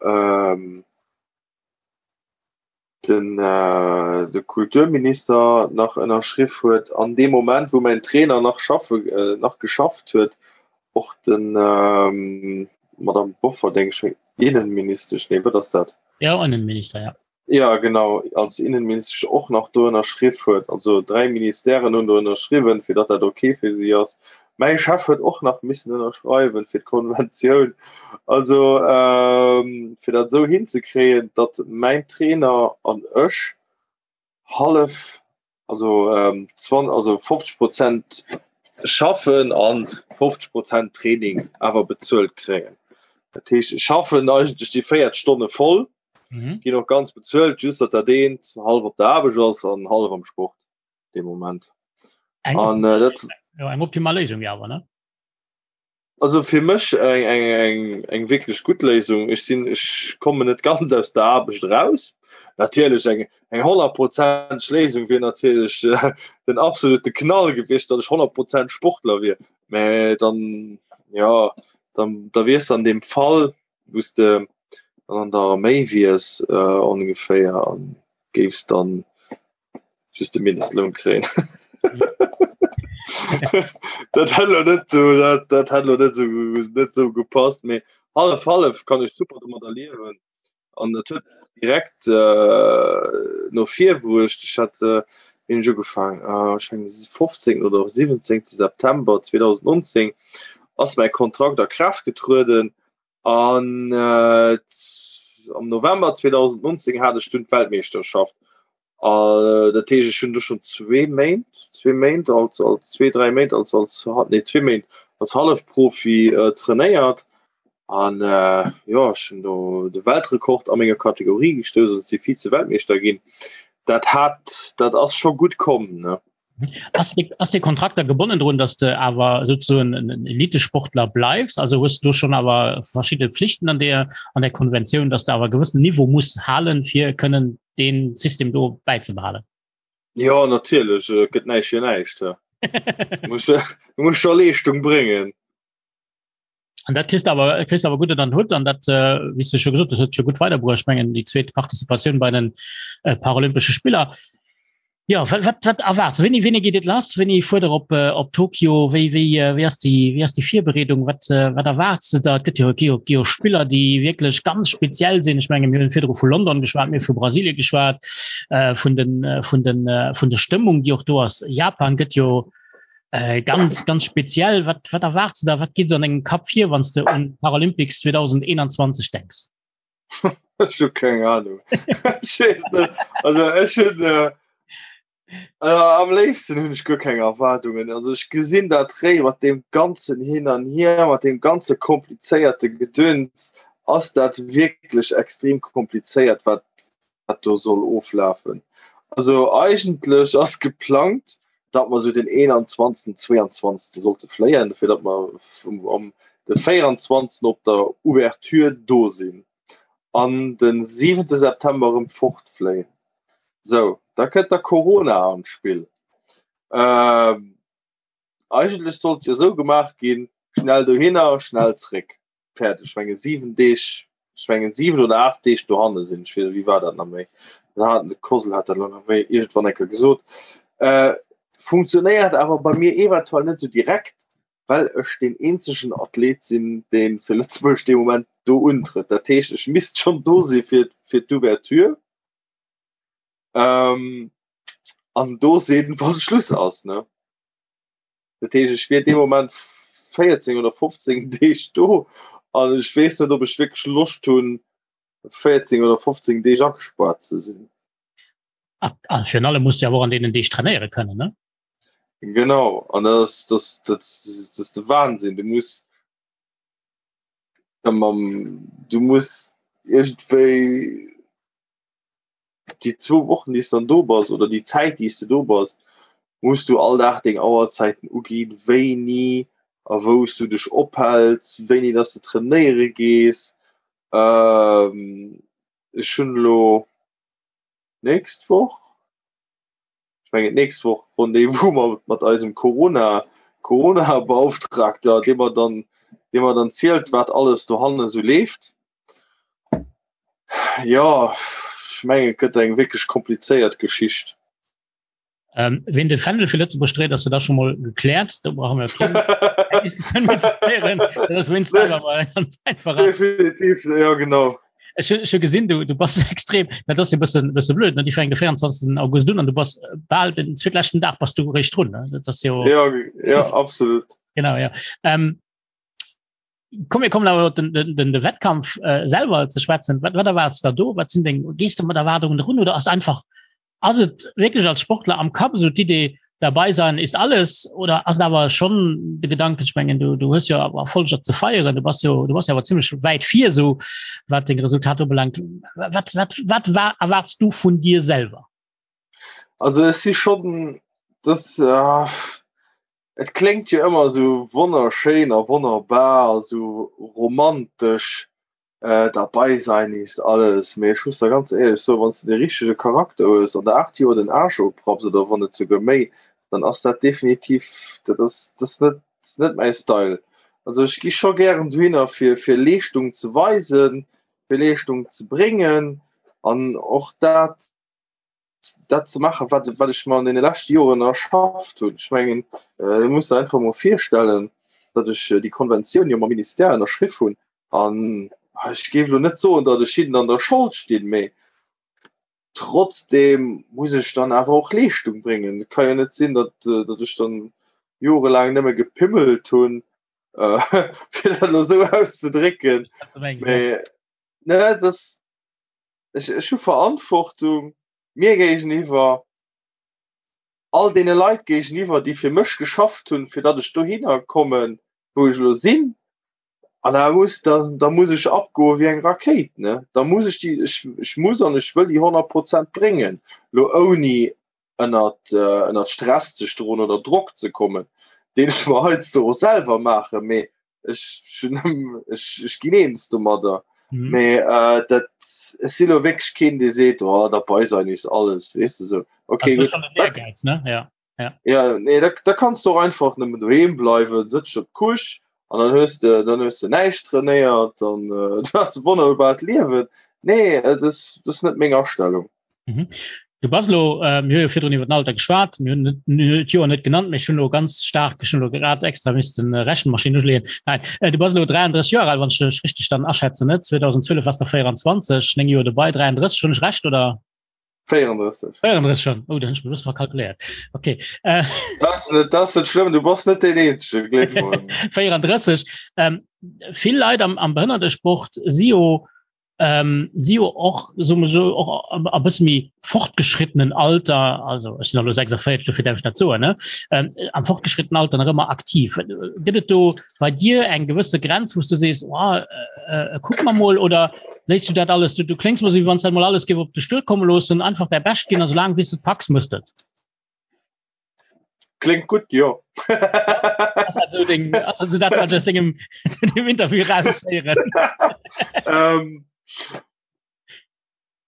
den de Kulturminister nach ënnerschriff huet an deem Moment, wou mäin Trainer nach schaffe nach geschafft huet, och den Madame Bofferding, Innenministesch, nee wat ass dat? Jo, Innenminister, ja. Ja, genau, als Innenministesch och nach do ënnerschriff huet. Also 3 Ministèren hunn do ënnerschriwwen, fir datt dat ok fir si ass. Mäi Chef huet och nach missen ënnerschreiwen fir d'Konventioun. Also fir dat esou hinzekréien, datt mäin Trainer an ech hallef, also also 50 Prozent schaffen an 50 Prozent Training awer bezuelt kréien. Dat heescht, ech schaffen eigentlech déi 40 Stonne voll, ginn och ganz bezuelt, just datt dat eent hallef op der Aarbecht ass an hallef am Sport. dee Moment. Eng, An äh, dat ja, eng optimal Léisung ja awer ne? Also fir mech eng, eng, eng, eng wierklech gutt Léisung. Ech sinn, ech kommen net ganz aus der Aarbecht eraus. Natierlech eng, eng honnertprozenteg Léisung wier natierlech äh, den absolute Knall gewiescht, datt ech 100 Prozent Sportler wier. Mä dann, ja, dann, da wiers de an deem Fall, wou s de dann an der Arméi wiers äh, ongeféier an géifs dann just de Mindestloun kréien. dat hätt lo net so, dat, dat hätt lo net so, net so gepasst, mee hallef hallef kann ech super domadder liewen. An dat huet direkt äh, no vir bruecht. Ech hat äh, wéini ech ugefaang äh, ech mengen 15. oder 17. September 2019 ass mäi Kontrakt a Kraaft getrueden An am November 2019 hat ech dunn d'Weltmeeschterschaft. Dat heescht ech hunn du schon zwee Méint zwee Méint als als zwee dräi Méint als als nee zwee Méint als Hallefprofi trainéiert. An jo ech hunn do de Weltrekord a menger Kategorie gestouss an si Vize-Weltmeeschter ginn. Dat hat dat ass scho gutt komm ne. Ass de, ass de Kontrakt da gebonnen drun, dass de awer sozusagen en Elitesportler bleifs? Also hues du schon awer verschidde Pflichten an der, an der Konventioun, dass du awer e gewëssen Niveau muss halen, fir kënnen deen System do bäizebehalen? Jo, natierlech, et gëtt näischt fir näischt. Du muss, du muss scho Leeschtung bréngen. An dat kriss de awer, kriss awer gutt an den Hutt an dat, äh, wéi s de scho gesot hues, huet scho gutt weiderbruecht. Ech mengen déi zweet Participatioun bei den äh, Paralympesche Spiller. Ja, wat, wat, wat erwaarts? Wéini, wéini geet et lass? Wéini fuert der op, äh, op Tokio? Wéi, wéi, äh, wéi ass déi, wéi ass déi Virbereedung? Wat, äh, wat erwaarts de da? Et gëtt jo, gi jo, gi jo Spiller, déi wierklech ganz speziell sinn. Ech menge mir hunn virdru vu London geschwat, mir hu vu Brasilien geschwat, äh, vun den, äh, vun den, äh, vun der Stëmmung, déi och do ass. Japan gëtt jo, Äh, ganz ganz speziell wat wat erwarts du da wat geht so an engem Kap vir wann du un Paralympics 2021 denkst Ech hu keng Ahnung. Ech weess net. Also ech hunn äh, äh, am léifsten hunn ech guer keng Erwaardungen. Also ech gesinn dat réi mat deem ganzen Hin an Hier, mat deem ganze komplizéierte Gedöns, ass dat wierklech extrem komplizéiert, wat wat do soll oflafen. Also eigentlech ass geplangt, datt mer sou den 21., 22. sollte fléien, fir datt mer am de 24. op der Ouverture do sinn an de 7. September erëm fortfléien. Sou, da kënnt da Corona an d'Spill. Eigentlech sollt jo esou gemaach ginn, schnell dohinner, schnell zréck. Fäerdeg. Ech menge 7 Deeg, ech mengen 7 oder 8 Deeg dohanne sinn. Ech weess, wéi war dat nach méi? Da hat de Kosel hat dat elo nach méi iergendwann eng Kéier gesot. Äh, funktionéiert awer bei mir eventuell net esou direkt, well ech deen eenzegen Athlet sinn, dee fir Lëtzebuerg dee Moment do untrëtt. Dat heescht, ech misst schonn do si fir, fir d'Ouverture. Ähm, an do sinn, wann Schluss ass, ne? Dat heescht, ech wier dee Moment 14 oder 15 Deeg do an ech weess net, ob ech wierklech Loscht hunn, 14 oder 15 Deeg agespaart ze sinn. A, a virun allem muss du awer och an deenen Deeg trainéiere kënnen, ne? Genau, an dat ass, dat, dat, dat ass de Wahnsinn. Du muss da mam, du muss iergendwéi déi zwou Wochen, déi s dann do bass oder déi Zäit, déi s de do bass, muss du all Dag deng Auerzäiten uginn, wéini a wou s du dech ophäls, wéini dass du trainéiere gees. Ech hunn elo d'nächst Woch, ech mengen d'nächst Woch Rendez-vous mat, mat eisem Corona, Corona-Beauftragter, dee mer dann, dee mer dann zielt, wat alles dohanne sou leeft. Jo, ech mengen, et gëtt eng wierklech komplizéiert Geschicht. Ähm, wien de Fändel fir Lëtzebuerg dréit, ass jo da schon mol gekläert. Do brauche mir keng Definitiv, ja genau. Ech hu gesinn, du, du bass extrem, dat ass jo bëssen, bësse blöd, ne? Déi fänkt de 24. August un an du bass bal den zweetleschten Dag bass du réischt drun, ne? Dat ass jo. Ja, ja, absolut. Genau, ja. Ähm, komm, mir kommen awer op den, den, den, de Wettkampf äh, selwer ze schwätzen. Wat, wat erwaarts der do? Wat sinn deng, gees du mat Erwaardungen drun oder ass einfach Ass et wierklech als Sportler am Kapp esou d'Idee, dabei sein ist alles oder ass et awer schonn de Gedanken, ech mengen du, du hues jo awer Erfolger ze feieren, du bass jo, du bass jo awer zimmlech wäit vir esou wat deng Resultater ubelaangt. Wat, wat, wat war, erwaarts du vun dir selwer? Also ech si schonn. Das, äh, et kléngt jo ëmmer esou wonnerschéin a wonnerbar a sou romantesch, äh, dabei sein ist alles. Mee ech muss der ganz éierlech soen, wann s de de richtege Charakter hues an der 8 Joer den Aarsch oprapps oder wann net souguer méi, dann ass dat definitiv, dat ass, dat ass net, net mäi Style. Also ech gi scho gären dohinner fir, fir Leeschtung ze weisen, fir Leeschtung ze bréngen an och dat, dat ze maachen, wat, wat ech mer an deene leschte Joren erschafft hunn. Ech mengen, du muss der einfach mol virstellen, datt ech déi Konventioun jo mam Ministère ënnerschriff hunn. An ech géif elo net soen, datt ech hinnen an der Schold stinn, mee trotzdem muss ech dann awer och Leeschtung bréngen. Et ka jo net sinn, datt, datt ech dann jorelaang nëmme gepimmelt hunn, fir dat elo esou auszedrécken. Mee, ne, dass, ech, ech hu Verantwortung mir géigeniwwer, all deene Leit géigeniwwer, déi fir mech geschafft hunn, fir datt ech dohinner kommen, wou ech elo sinn. An da muss, da, da muss ech abgoe wéi eng Rakéit, ne? Da muss ech déi, ech, ech muss an ech wëll déi 100 Prozent bréngen, lo ouni ënnert, ënnert Stress ze stoen oder Drock ze kommen, deen ech mer heiansdo och selwer maachen, mee ech, ech, ech ginn eens domadder. Mhm. Mee äh, dat ech si lo wierklech keen, dee seet, oh, dabei sein ist alles, weess de sou. Okay, also, gutt. Ehrgeiz, ne? Ja. Ja. Ja, nee, da, da kannst du och einfach nëmmen doheem bleiwen, sëtz op d'Couche an dann hues de, dann hues de näischt trainéiert, dann äh, du hast e wonnerbart Liewen. Nee, äh, das, das ist net meng Astellung. Mhm. Du bass lo äh, mir hu jo virdrun iwwer den Alter geschwat, mir hunn net d'Joer net genannt, mee ech hunn lo ganz staark, ech hunn lo grad extra missten äh, Rechenmaschinn uschleeën. Nein, äh, du bass lo 33 Joer al, wann ech dech richteg dann aschätzen, net? 2012 warst der 24, 9 Joer dobei, 33, hunn ech recht oder? 34. 34 schon. Oh, dann hunn ech mech e bësse verkalkuléiert. Okay. Äh, Das ass net, das ass net schlëmm, du bass net deen Eenzege, gleef mer. 34. Ähm, vill Leit am, am Behënnertesport si jo ähm, si jo och so so och a bësse méi fortgeschrittenen Alter, also ech sinn elo 46, dofir däerf ech dat soen, ne? Ähm, am fortgeschrittenen Alter nach ëmmer aktiv. Gëtt et do bei dir eng gewësse Grenz, wou s du sees, oh, äh, äh, kuck mer mol oder léiss du dat alles, du, du kléngs mer sou, wéi wann s dat mol alles géif op de Stull komme loossen, einfach däi Bescht ginn a soulaang wéi s de et packs, mëss de et. Klingt gut, jo. Ass dat so deng, ass dat so dat, wat ech aus dengem, dem Interview raushéieren? ähm,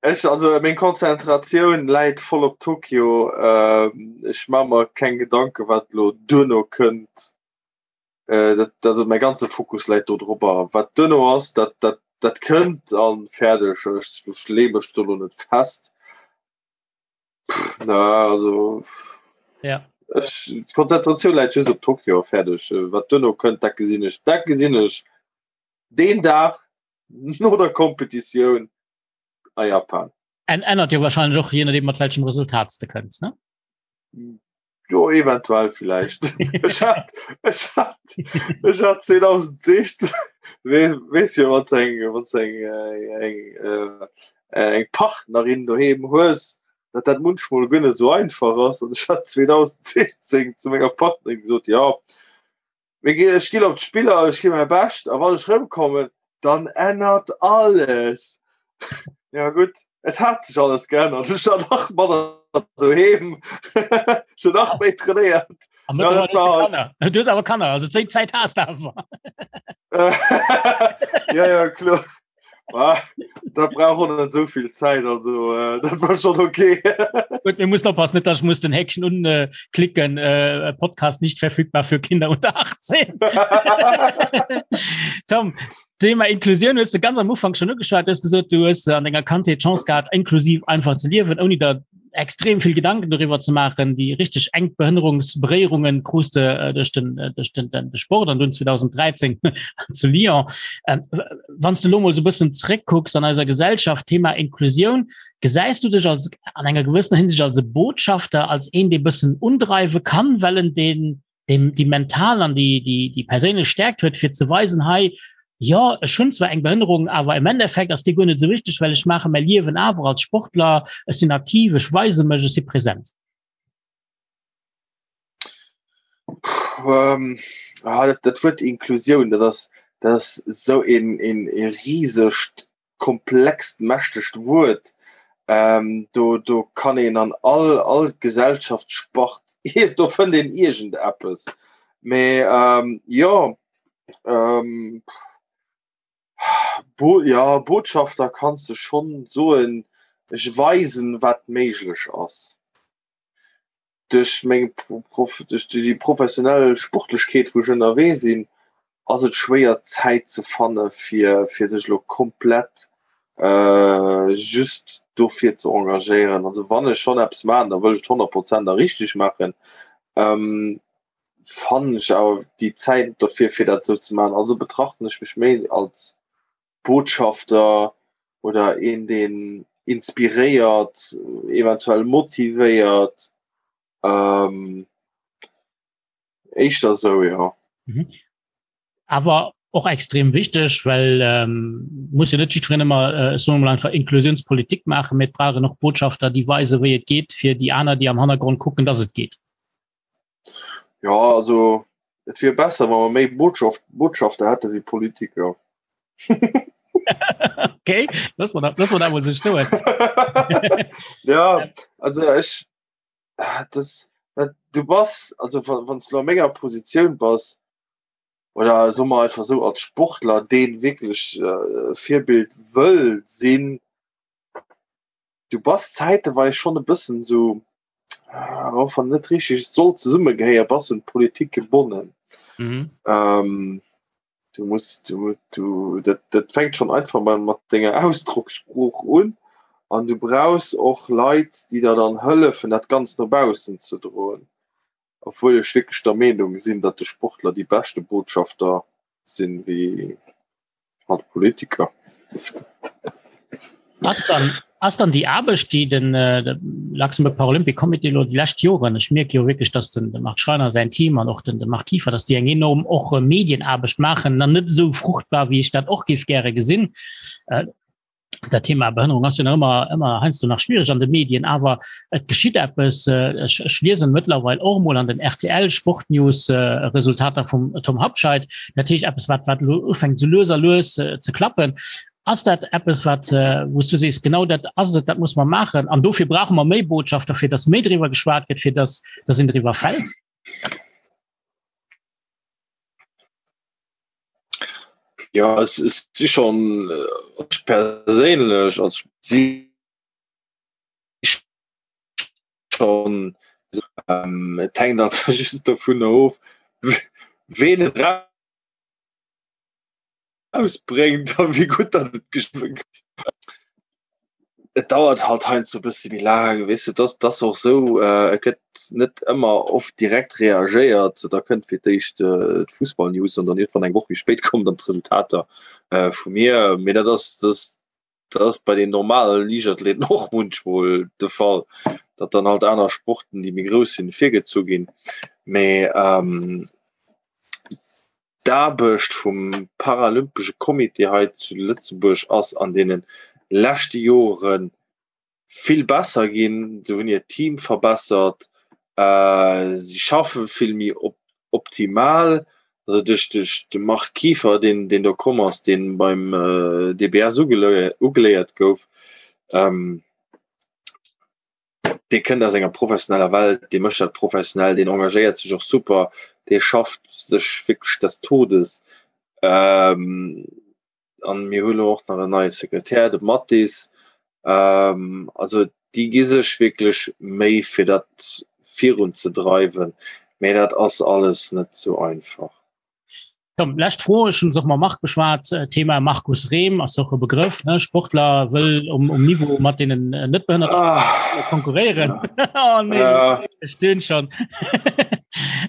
ech, also meng Konzentratioun läit voll op Tokio. Ähm, ech ma mer keng Gedanke wat lo duerno kënnt. Äh, dat, also mäi ganze Fokus läit do drobber. Wat duerno ass, dat, dat, dat kënnt an fäerdeg. Ech, ech lee mech do lo net fest. Na, also ja. Ech, d'Konzentratioun läit just op Tokio fäerdeg. Wat duerno kënnt, dat gesinn ech. Dat gesinn ech deen Dag no der Kompetitioun a Japan. En ännert jo wahrscheinlech och je nodeem mat welchem Resultat s de kënns, ne? Jo, eventuell villäicht. Ech hat, ech hat, ech hat 2016, weess jo, wann s eng, wann s eng, eng, eng Partnerin doheem hues, datt dat munchmol guer net esou einfach ass. An ech hat 2016 zu menger Partnerin gesot, jo, Mir ginn, ech ginn op d'Spiller, ech ginn mäi Bescht a wann ech rëmkommen, dann ännert alles. Ja gutt, et hat sech alles geännert. Ech war nach manner doheem, ech hunn nach méi trainéiert. A mëttlerweil hues du Kanner. Du hues awer Kanner, also zéi Zäit has de awer. Ja, ja, kloer. Ah, da brauch och net esou vill Zäit, also äh, dat war schon okay. Gut, wir müssen oppassen, nicht, dass ich muss den Häkchen unklicken, äh, Podcast nicht verfügbar für Kinder unter 18. Tom, Thema Inklusion hues du ganz am Ufank schon ugeschwat, du hues gesot, du hues an denger Kandheet d'Chance gehat, inklusiv einfach ze liewen, ouni der extrem vill Gedanken doriwwer ze maachen. Déi richteg enk Behënnerungsberéierungen krus de äh, duerch den, äh, duerch den, den, de Sport an dunn 2013 zu Lyon. Ähm, wann du lo mol so bëssen zréckkucks an eiser Gesellschaft, Thema Inklusioun, gesäis du dech als an enger gewëssener Hinsicht als e Botschafter, als een, dee bëssen undreiwe kann, well en den dem déi mental an déi, déi, déi perséinlech Stärkt huet, fir ze weisen, hei, jo, ech hunn zwar eng Behënnerung, awer im Endeffekt ass déi guer net esou wichteg, well ech maache mäi Liewen awer als Sportler, ech sinn aktiv, ech weise mech, ech si present. Ähm, ah, dat, dat Wuert Inklusioun, dat ass, dat ass esou een, een, ee risegt, komplext, mächtegt Wuert. Ähm, do, do kann een an all, all Gesellschaftsspart. Do fënnt een iergend eppes. Mee ähm, jo, ähm, Bo ja, Botschafter kanns de schonn soen, ech weisen, wat méiglech ass. Duerch meng Prof duerch déi professionell Sportlechkeet, wou ech ënnerwee sinn, ass et schwéier Zäit ze fanne fir fir sech elo komplett just dofir ze engagéieren. Also wann ech schonn eppes maachen, da wëll ech et 100 Prozent a richteg maachen. Fannen ech awer déi Zäit dofir fir dat esou ze maachen. Also betrachten ech mech méi als Botschafter oder een deen inspiréiert, eventuell motivéiert. Éischter esou, jo. Mhm. Awer och extrem wichteg, well ähm, muss jo net jiddwereen ëmmer äh, soen wir mal einfach Inklusionspolitik maachen, mee et brauch een och Botschafter, déi weisen, wéi et geet, fir déi aner, déi am Hannergrond kucken, dass et geet. Ja, also et wier besser, wa mer méi Botschaft, Botschafter hätte wéi Politiker. Okay, lass mal dat, lass mal dat mol sou stoen. Ja, also ech das, dat, du bass, also wann du a menger Positioun bass, oder soe mer einfach sou als Sportler, deen wierklech äh, Virbild wëll sinn, du bass zäiteweis schonn e bëssen sou, och wann net richteg soll zesummegehéier, bass un d'Politik gebonnen. Mhm. Ähm, du muss du, du dat, dat fänkt schon einfach mal mat denger Ausdruckssprooch un an du brauchs och Leit, déi der dann hëllefen, dat Ganzt no baussen ze droen. Obwuel ech wierklech der Meenung sinn, datt de Sportler déi beschte Botschafter sinn, wéi halt Politiker. Ass dann, ass dann déi Aarbecht, déi den äh, Luxembourg Paralympic Committee lo déi lescht Joren, ech mierke jo wierklech, datt den, de Marc Schreiner säin Team an och den, de Marc Kieffer, datt déi eng enorm och äh, Medienaarbecht maachen, dann net esou fruchtbar, wéi ech dat och géif gäre gesinn. Äh, dat Thema Behënnerung ass jo nach ëmmer ëmmer heiansdo nach schwierig an de Medien, awer et geschitt eppes. Äh, ech, ech liesen mëttlerweil och mol an den RTL Sportnews äh, Resultater vum Tom Habscheid. Dat heescht eppes, wat wat lo ufänkt sou lues a lues äh, ze klappen. Ass dat eppes, wat äh, wou s du sees, genau dat ass et, dat muss mer maachen an dofir brauche mer méi Botschafter, fir datt méi driwwer geschwat gëtt, fir datt datt een driwwer fält? Ja es es si schon äh, ech perséinlech als si schon ähm, et hänkt also just dovun of ween et rausbréngt a wéi gutt dat et geschriwwe gëtt. Et dauert halt heiansdo e bësse méi laang, weess de, dass dass och esou, et gëtt net ëmmer oft direkt reagéiert. Da kënnt fir d'éischt d'Fussballnews an dann iergendwann eng Woch méi spéit kommen dann d'Resultater vu mir. Mee dat ass dat dat ass bei den normale Liichtathleten och munchmol de Fall, datt dann halt aner Sporten, déi méi grouss sinn, virgezu ginn. Mee D'Aarbecht vum Paralympesche Comité hei zu Lëtzebuerg ass an deene leschte Jore vill besser ginn. Se hunn hiert Team verbessert, si schaffe vill méi optimal. Also duerch de Marc Kieffer, deen do komm ass, dee beim DBS ugeléiert gouf. Dee kënnt aus enger professioneller Welt, dee mécht dat professionell, deen engagéiert sech och super, dee schafft sech wierklech des Todes. Ähm, an mir hu lo och nach en neie Sekretär, de Mathis. Ähm, also déi gi sech wierklech Méi fir dat virunzedreiwen, mä dat ass alles net sou einfach. Komm, lescht Fro, ech hunn se och mam Marc beschwat, Thema Markus Rehm ass och e Begrëff, ne? Sportler wëll um, um Niveau mat deenen net behënnerte ah. konkurréieren. Oh, nee, ja. ech dünn schon.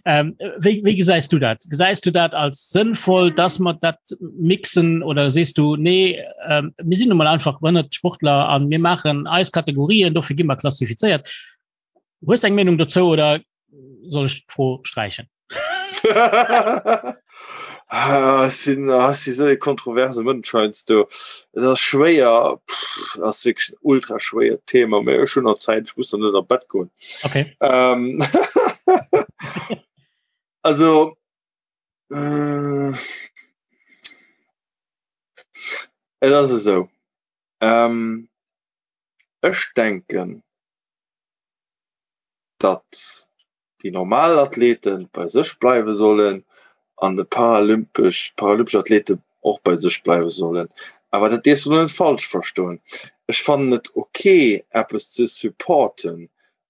ähm, wéi, wéi gesäis du dat? Gesäis du dat als sënnvoll, dass mer dat mixen oder sees du nee, ähm, mir sinn nun mal einfach behënnert Sportler an mir maachen eis Kategorien, dofir gi mer klassifizéiert. Hues du eng Meenung dozou oder soll ech d'Fro sträichen? Ah, sinn ah, si sou e kontroverse Mënsch heiansdo. Et ass schwéier, pff, ass wierklech en ultra schwéiert Thema, mä ech hunn nach Zäit, ech muss nach net an d'Bett goen. Okay. Ähm, also, mm, et ass esou, ähm, ech denken, datt. déi normal Athlete bei sech bleiwe sollen an de paralympesch paralympesch Athlete och bei sech bleiwe sollen. Awer dat dierfs du net falsch verstoen. Ech fannen et ok eppes ze supporten,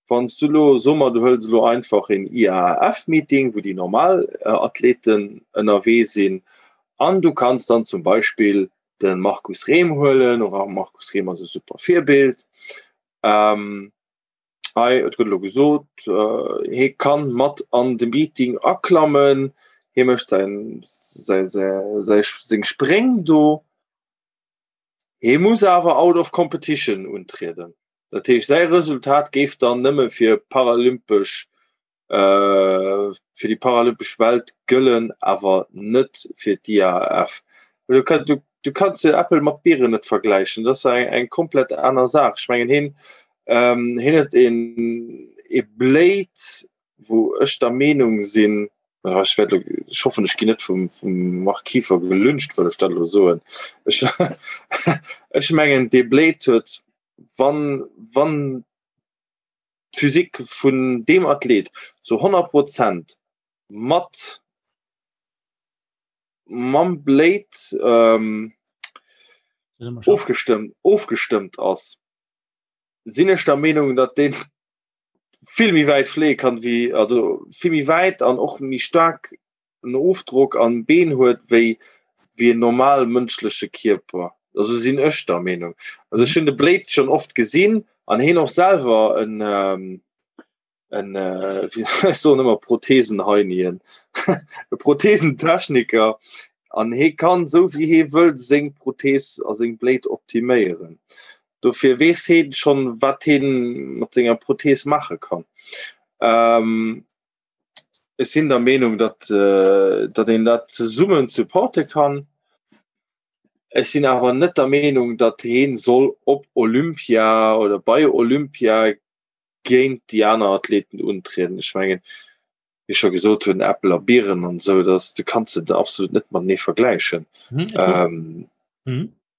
wann s du elo, soe mer du hëls elo einfach een IAAF-Meeting, wou déi normal Athleten ënnerwee sinn an du kanns dann zum Beispill de Markus Rehm huelen, och Markus Rehm ass e super Virbild, Hei, et gëtt elo gesot, hie kann mat an de Meeting aklammen, hie mécht säin, säi, säi, seng Spréng do. Hie muss awer out of competition untrieden. Dat heescht, säi Resultat géif dann nëmme fir paralympesch fir déi paralympesch Welt gëllen, awer net fir d'IAAF. Du, du, du kanns jo Äppel mat Bieren net vergläichen, dat ass eng, eng komplett aner Saach. Ech mengen hien ähm, hien huet een ee Blade, wou ech der Meenung sinn, ech wäert elo, ech hoffen ech ginn net vum, vum Marc Kieffer gelyncht, well ech dat elo soen. Ech, ech mengen dee Blade huet, wann, wann d'Physik vun deem Athlet zu 100 Prozent mat mam Blade ähm, ofgestëmmt, ofgestëmmt ass, sinn ech der Meenung, datt deen vill méi wäit fléie kann wéi also vill méi wäit an och méi staark en Ofdrock an Been huet wéi wéi en normal mënschleche Kierper. Also sinn ech der Meenung. Also ech hunn de Blade schonn oft gesinn an heen och selwer en en ech soen ëmmer Prothesenheinien, e Prothesentechniker an hee kann esou wéi hee wëll seng Prothees a seng Blade optiméieren. Dofir weess heen schonn wat heen mat senger Prothees maache kann. Ech sinn der Meenung, datt, datt een dat zesummen supporte kann. Ech sinn awer net der Meenung, datt heen soll op Olympia oder bei Olympia géint déi aner Athleten untrieden. Ech mengen, wéi ech scho gesot hunn, Äppel a Bieren an esou, dass, du kanns se absolut net matenee vergläichen.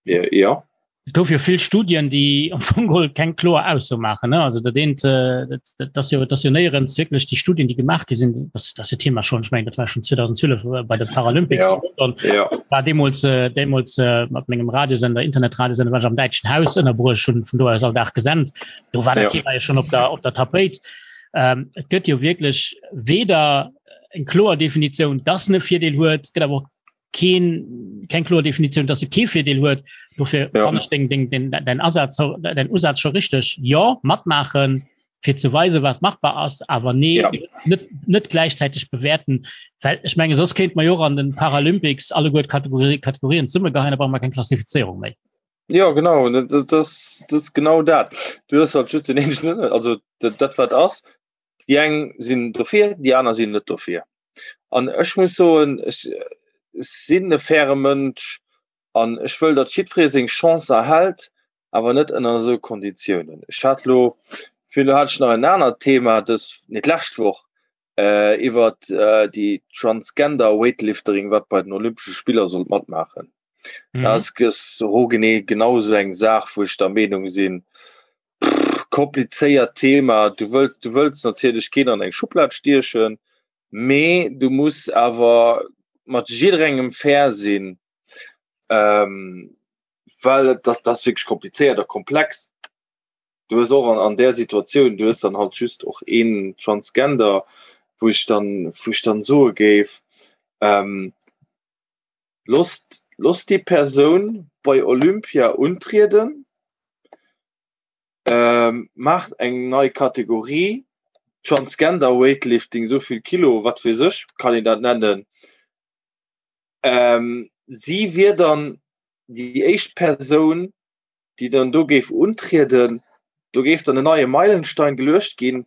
Ja. Et gouf jo vill Studien, déi am Fong geholl keng kloer Ausso maachen. Also dat eent, dat ass jo, dat ass jo néierens wierklech déi Studien, déi gemaach gi sinn, dat ass jo Thema schonn, ech mengen, dat war schonn 2012 bei de Paralympics zu London, ja. war deemools, deemools mat mengem Radiosender, Internetradiosender, war ech am Däitschen Haus ënnerbruecht, hunn vun do aus all Dag gesent. Do war dat Thema jo schonn op der, op der Tapéit. Et gëtt jo wierklech weder eng kloer Definitioun, dass en e Virdeel huet, et gëtt awer och keen keng kloer Definitioun, dass se kee Virdeel huet. Dofir ja. fand ich den, den, den, den Asatz den Usatz schon richtig. Ja matmachen fir ze weise was machbar ass, awer nee ja. net, net gleichzeitig bewerten. Well ich menge sos kéint man jo an den Paralympics alle gut Kategorie, Kategorien zumme gehein, brauch man keng Klassifizierung méi. Ja genau das, das, das genau dat. Du hast halt just den also dat, dat wat ass. Déi eng sinn dofir, déi aner sinn net dofir. An ech muss soen, ech sinn e faire Mënsch an ech wëll, datt jiddweree seng Chance erhält, awer net ënner esou Konditiounen. Ech hat elo, virun elo hat ech nach en anert Thema dës, nee d'lescht Woch, iwwer déi Transgender Weightliftering, wat bei den Olympesche Spiller sollt matmaachen. Dat ass genee genau esou eng Saach, wou ech der Meenung sinn, komplizéiert Thema. Du wëlls, du wëlls natierlech keen an eng Schublad stiechen, mee du muss awer mat jidderengem fair sinn, ähm, well dat, dat ass wierklech komplizéiert a komplex. Du hues och an, an där Situatioun, du hues dann halt just och een Transgender, wou ech dann, wou ech dann soe géif, ähm, Losst, losst déi Persoun bei Olympia untrieden, maacht eng nei Kategorie, Transgender Weightlifting, esou vill Kilo, wat weess ech, kann een dat nennen. Si wier dann déi éischt Persoun, déi dann do géif untrieden. Do géif dann en neie Meilenstein geluecht ginn,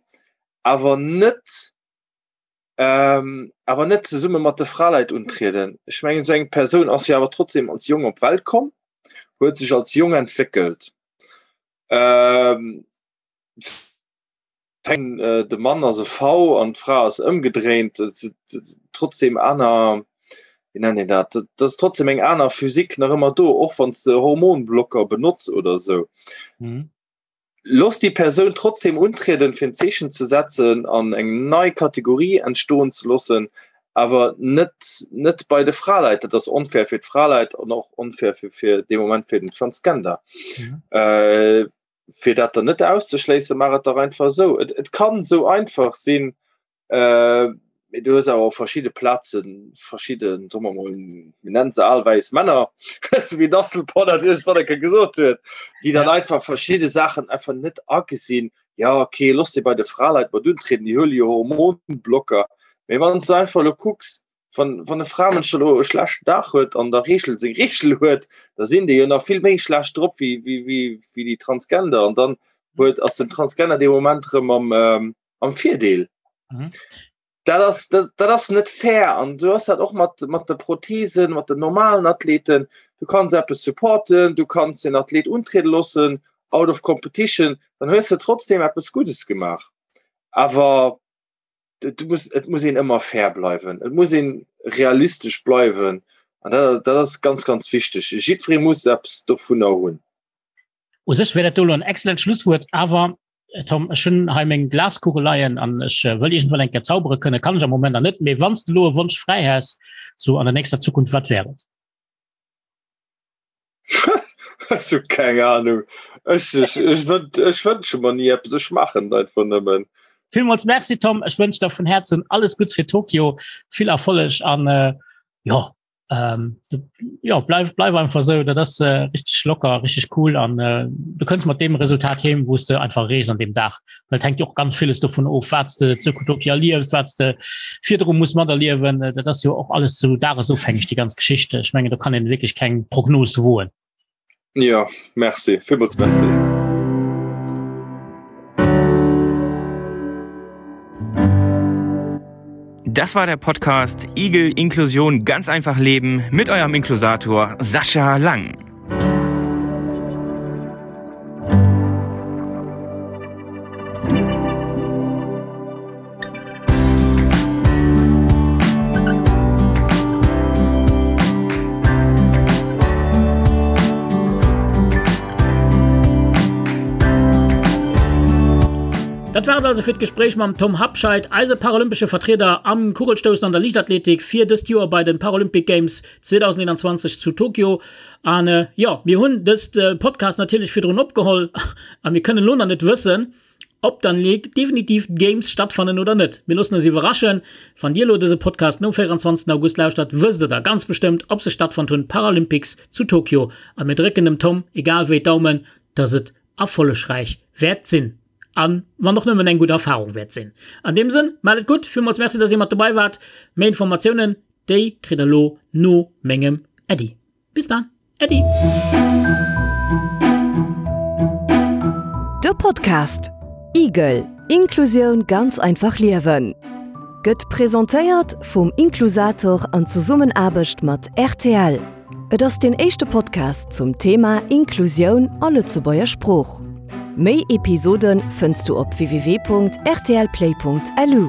awer net ähm, awer net zesumme mat de Fraleit untrieden. Ech mengen esou eng Persoun ass jo awer trotzdem als Jong op d'Welt komm, huet sech als Jong entwéckelt. Ähm, äh, de Mann ass e V an d'Fra ass ëmgedréint, trotzdem aner wéi nennt een dat, dat ass trotzdem eng aner Physik nach ëmmer do, och wann s de Hormonblocker benotz oder esou. Mhm. Looss déi Persoun trotzdem untrieden, fir en Zeechen ze setzen an eng nei Kategorie entstoen ze loossen, awer net net bei de Fraleit. Dat ass onfair fir d'Fraleit an och onfair fir fir dee Moment fir den Transgender. Mhm. Äh, fir dat dann net auszeschléissen, maach et dach einfach esou. Et, et kann esou einfach sinn, Äh, mee du hues awer op verschidde Plaze verschidden, soe mer mol, mir nennen se al wäiss Männer, sou wéi d'Asselborn dat iergendwann eng Kéier gesot huet, déi dann einfach verschidde Saachen einfach net agesinn. Ja, okay, looss déi bei de Fraleit mat untrieden, déi huele jo Hormonblocker. Mee wann s du einfach elo kucks, wann, wann e Framënsch elo e schlechten Dag huet an der Reegel seng Reegel huet, da sinn déi jo nach vill méi schlecht drop wéi, wéi, wéi, wéi déi Transgender. An dann huet, ass den Transgender dee Moment erëm am, am Virdeel. Mhm. Dat ass, dat, dat ass net fair an so ass dat och mat, mat de Prothesen, mat den normalen Athleten. Du kanns eppes supporten, du kanns den Athlet untriede loossen, out of competition, dann hues de trotzdem eppes Guddes gemaach. Awer du muss, et muss een ëmmer fair bleiwen, et muss een realistesch bleiwen an dat, dat ass ganz, ganz wichteg. Jiddweree muss eppes dovunner hunn. U sech wär dat do elo en excellent Schlusswuert, awer Tom, ech hunn hei meng Glaskugel leien an ech wëll iergendwann eng Kéier zaubere kënnen, kann ech am Moment nach net, mee wann s de elo e Wonsch fräi häss, sou an der nächster Zukunft, wat wär et? Ech hu keng Ahnung. Ech, ech, ech, ech wënsche mer ni eppes, ech maachen et einfach nëmmen. Villmools Merci Tom, ech wënsch der vun Häerzen alles Gutts fir Tokio, vill Erfolleg an jo, ähm, du, ja bleif bleif einfach so dat ass äh, richtig locker richtig cool an äh, du kënns mat dem Resultat heem wous de einfach rees an dem Dach well hängt jo och ganz vieles dovun of wat de zu Utopia liefs wat de virdru muss mat erliewen äh, dat ass jo och alles zu dagesofhängeg die ganz Geschichte ich menge do kann een wirklich keng Prognos woen Ja, merci. Villmools merci. Das war der Podcast Igel Inklusion ganz einfach leben mit eurem Inklusator Sascha Lang. Dat war et also fir d'Gespréich mam Tom Habscheid, eise paralympesche Vertrieder am Kugelstoussen an der Liichtathletik fir dëst Joer bei den Paralympic Games 2021 zu Tokio. An jo, mir hunn dëst Podcast natierlech virdrun opgeholl a mir kënnen elo nach net wëssen, Ob dann definitiv d'Games stattfannen oder net, mir loossen eis iwwerraschen. Wann dir elo dëse Podcast nom 24 August lauschtert, wësst der da ganz bestëmmt, ob se stattfonnt hunn, d'Paralympics zu Tokio. A mir drécken dem Tom egal wéi d'Daumen, dass et erfollegräich wäert sinn. A wann och nëmmen eng gutt Erfarung wäert sinn. An deem Sënn, maacht et gutt, villmools Merci, dass dir mat dobei waart. Méi Informatiounen, déi kritt der elo no mengem Äddi. Bis dann! Äddi! De Podcast Igel, Inklusioun ganz einfach liewen gëtt presentéiert vum Inklusator an Zesummenaarbecht mat rtl. Et ass deen éischte Podcast zum Thema Inklusioun a Lëtzebuerger Sprooch. Méi Episode fënns du op www.rtlplay.lu.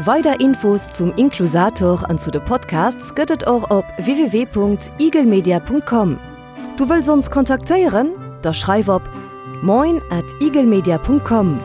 Weider Infos zum Inklusator an zu de Podcasts gëtt et och op www.igelmedia.com. Du wëlls ons kontaktéieren? Da schreif op moin at igelmedia.com.